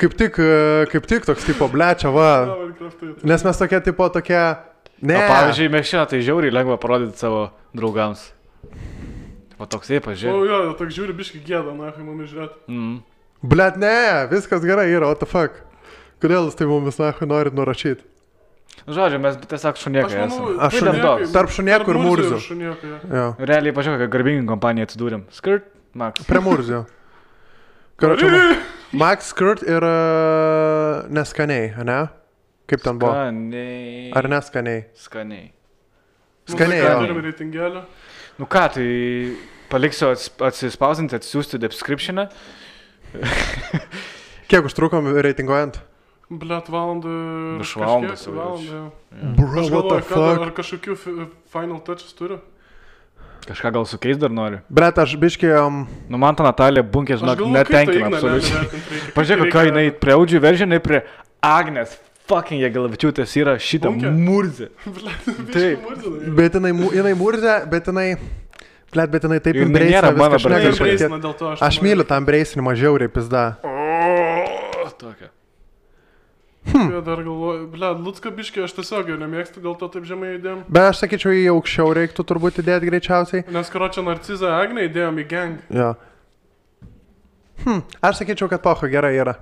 kaip tik toks tipo blečia, va. Nes mes tokie, ne. O pavyzdžiui, Mekšina, tai žiauriai lengva parodyti savo draugams. O toks jie pažiūrė. O jo, toks žiūri biški gėda, na, kai mumis žiūrėt. Blet, ne, viskas gerai yra, what the fuck. Kodėl jūs tai mumis, na, norit nurašyti? Žodžiu, mes tiesiog šuniekai esame. Tarp šuniekų ir Murzių. Jo. Realiai, pažiūrėk, kokią garbingą kompaniją atsidūrėm. Skirt, Max. Prie Murzių. Max, Skirt ir neskaniai, ne? Kaip ten buvo? Skaniai. Ar neskaniai? Skaniai. Skaniai, Turim reitingelio. Nu ką, tai paliksiu atsispausinti, atsiųsti descriptioną. Kiek užtrukom reitinguojant? Blet, valandą. Virš valandos jau. Bro, Aš what the galvoju, fuck? ar kažkokių final touches turiu? Kažką gal sukeis dar noriu. Bret, aš biškai... Nu man ta Natalija Bunkė, žinok, netenkina absoliučiai. Pažiūrėk, ką jinai prie Audžių veržė, jinai prie Agnės fucking Jagelavičiūtės yra šitą murzę. Taip. Bet jinai murzė, bet jinai... Blet, bet jinai taip Ir imbreisina nėra mano viską šneka. Dėl to Aš myliu tą imbreisinimą žiauriai, pizda. Tokia. Ja, dar galvoju, blet, Lucka biškį aš tiesiog jau nemėgstu, dėl to taip žemai įdėjom. Bet aš sakyčiau, į aukščiau reiktų turbūt įdėti greičiausiai. Nes karočią Narcizą Agnę įdėjom į gang. Jo. Aš sakyčiau, kad pocho gerai yra.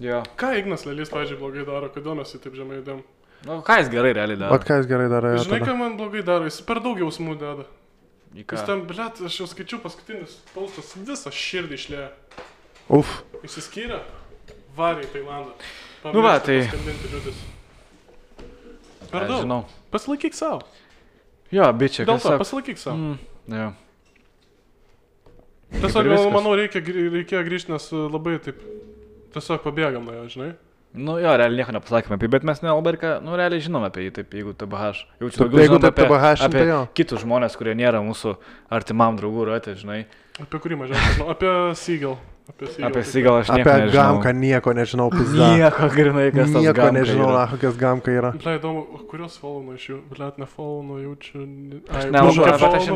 Jo. Ką Ignas Lelys, pavyzdžiui, blogai daro, kodėl mes jį taip žemai įdėjom? Nu, ką jis gerai realiai daro? O ką jis gerai daro? Žinai, ką man blogai daro, jis per daug jausmų deda. Į ką? Jis ten, blet, aš jau skaičiu paskutinis paustas, visą širdį išlėjo. Uf. Išsiskyrė, varė į Tailandą. Nu va, tai... Per daug. Žinau. Pasilaikyk savo. Jo, bičiai, Dėl to, pasilaikyk savo. Jo. Tiesiog, manau, reikėjo grįžti, nes labai taip, tiesiog pabėgam nuo jo, žinai. Nu jo, realiai nieko nepasakėme apie jį, bet mes nelabai ir ką, nu realiai žinome apie jį, taip, jeigu TBH. Jeigu taip TBH, apie tai jo. Kitus žmonės, kurie nėra mūsų artimam draugų ratė, žinai. Apie kurį mažiausiai žinau, apie Seagal. Apie Seagal aš nieko nežinau. Apie Gamką nieko nežinau, pizda. Nieko, grinai, kas tas Nieko Gamka nežinau, yra. kokias Gamka yra. Ble, įdomu, kurios follow iš jų? Ble, nefollow jaučiu... Aš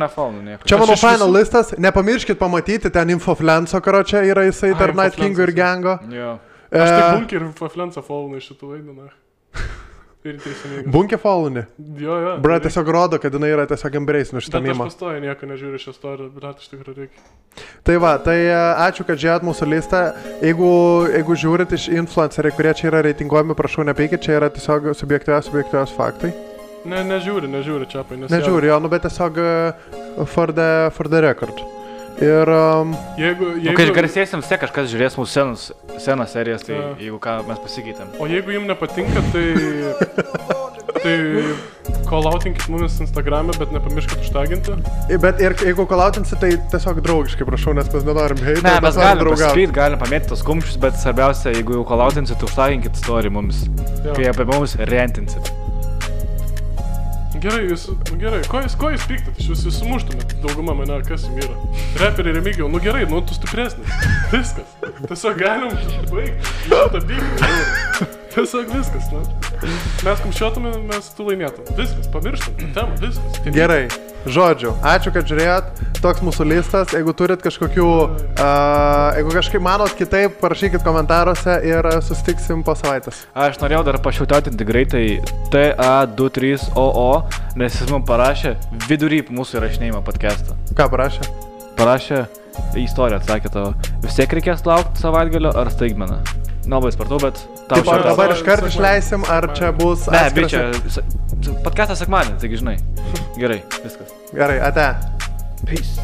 nefollow nieko. Čia mano final listas, nepamirškit pamatyti, ten Infoflenso, karočią, yra jisai tarp Night Kingo ir Gango. Jo. Aš tik Bunkį ir Infoflensą follow iš šitų vaidinų. Ir teisingai. Bunkė followni? Jo. Bra, tiesiog rodo, kad jinai yra tiesiog embrace šitą mimą. Bet aš pastoju nieko nežiūriu šią istoriją, bet iš tikrųjų reikia. Tai va, tai ačiū, kad žiūrėt mūsų listą. Jeigu žiūrit iš influenceriai, kurie čia yra reitinguojami, prašau nepeikit, čia yra tiesiog subjektyviausi faktai. Nežiūri čia apie, nes... Nežiūri, jo, nu bet tiesiog for the record. Ir... Jeigu garsėsim, vis tiek kažkas žiūrės mūsų senas serijas, tai jeigu ką mes pasikeitėm. O jeigu jums nepatinka, tai call-outinkit mumis Instagram'e, bet nepamirškit užtaginti. Bet ir jeigu call-outinsit, tai tiesiog draugiškai, prašau, nes mes nenorim hate. Ne, mes galim pasakyti, galim pamėti tos kumščius, bet svarbiausia, jeigu jau call-outinsit, tai užtaginkit story mumis, kai apie mumis rentinsit. Gerai, ko jūs pyktat, jūs sumuštumėt, dauguma mane, kas jums yra. Reperiai Remigiau, nu gerai, nu tu stipresnis, viskas, tiesiog galim baigti, šitą bygti, tiesiog viskas, nu. Mes kumščiotume, mes tu laimėtum, viskas, pamirštam, temą, viskas. Gerai, žodžiu, ačiū, kad žiūrėjot, toks mūsų listas, jeigu turit kažkokių, jeigu kažkaip manot kitaip, parašykit komentaruose ir susitiksim po savaitės. Aš norėjau dar pašiautautinti greitai TA23OO, nes jis mums parašė vidury mūsų įrašinėjimo podcast'ą. Ką parašė? Parašė istoriją, atsakė tavo. Vis tiek reikės laukti savaitgalio ar staigmeną. Nelabai spartau, bet tau šiandien. Taip, dabar iškart išleisim, ar čia bus... Ne, bičia, podcast'ą sekmadienį, taigi žinai. Gerai, viskas. Gerai, ate. Peace.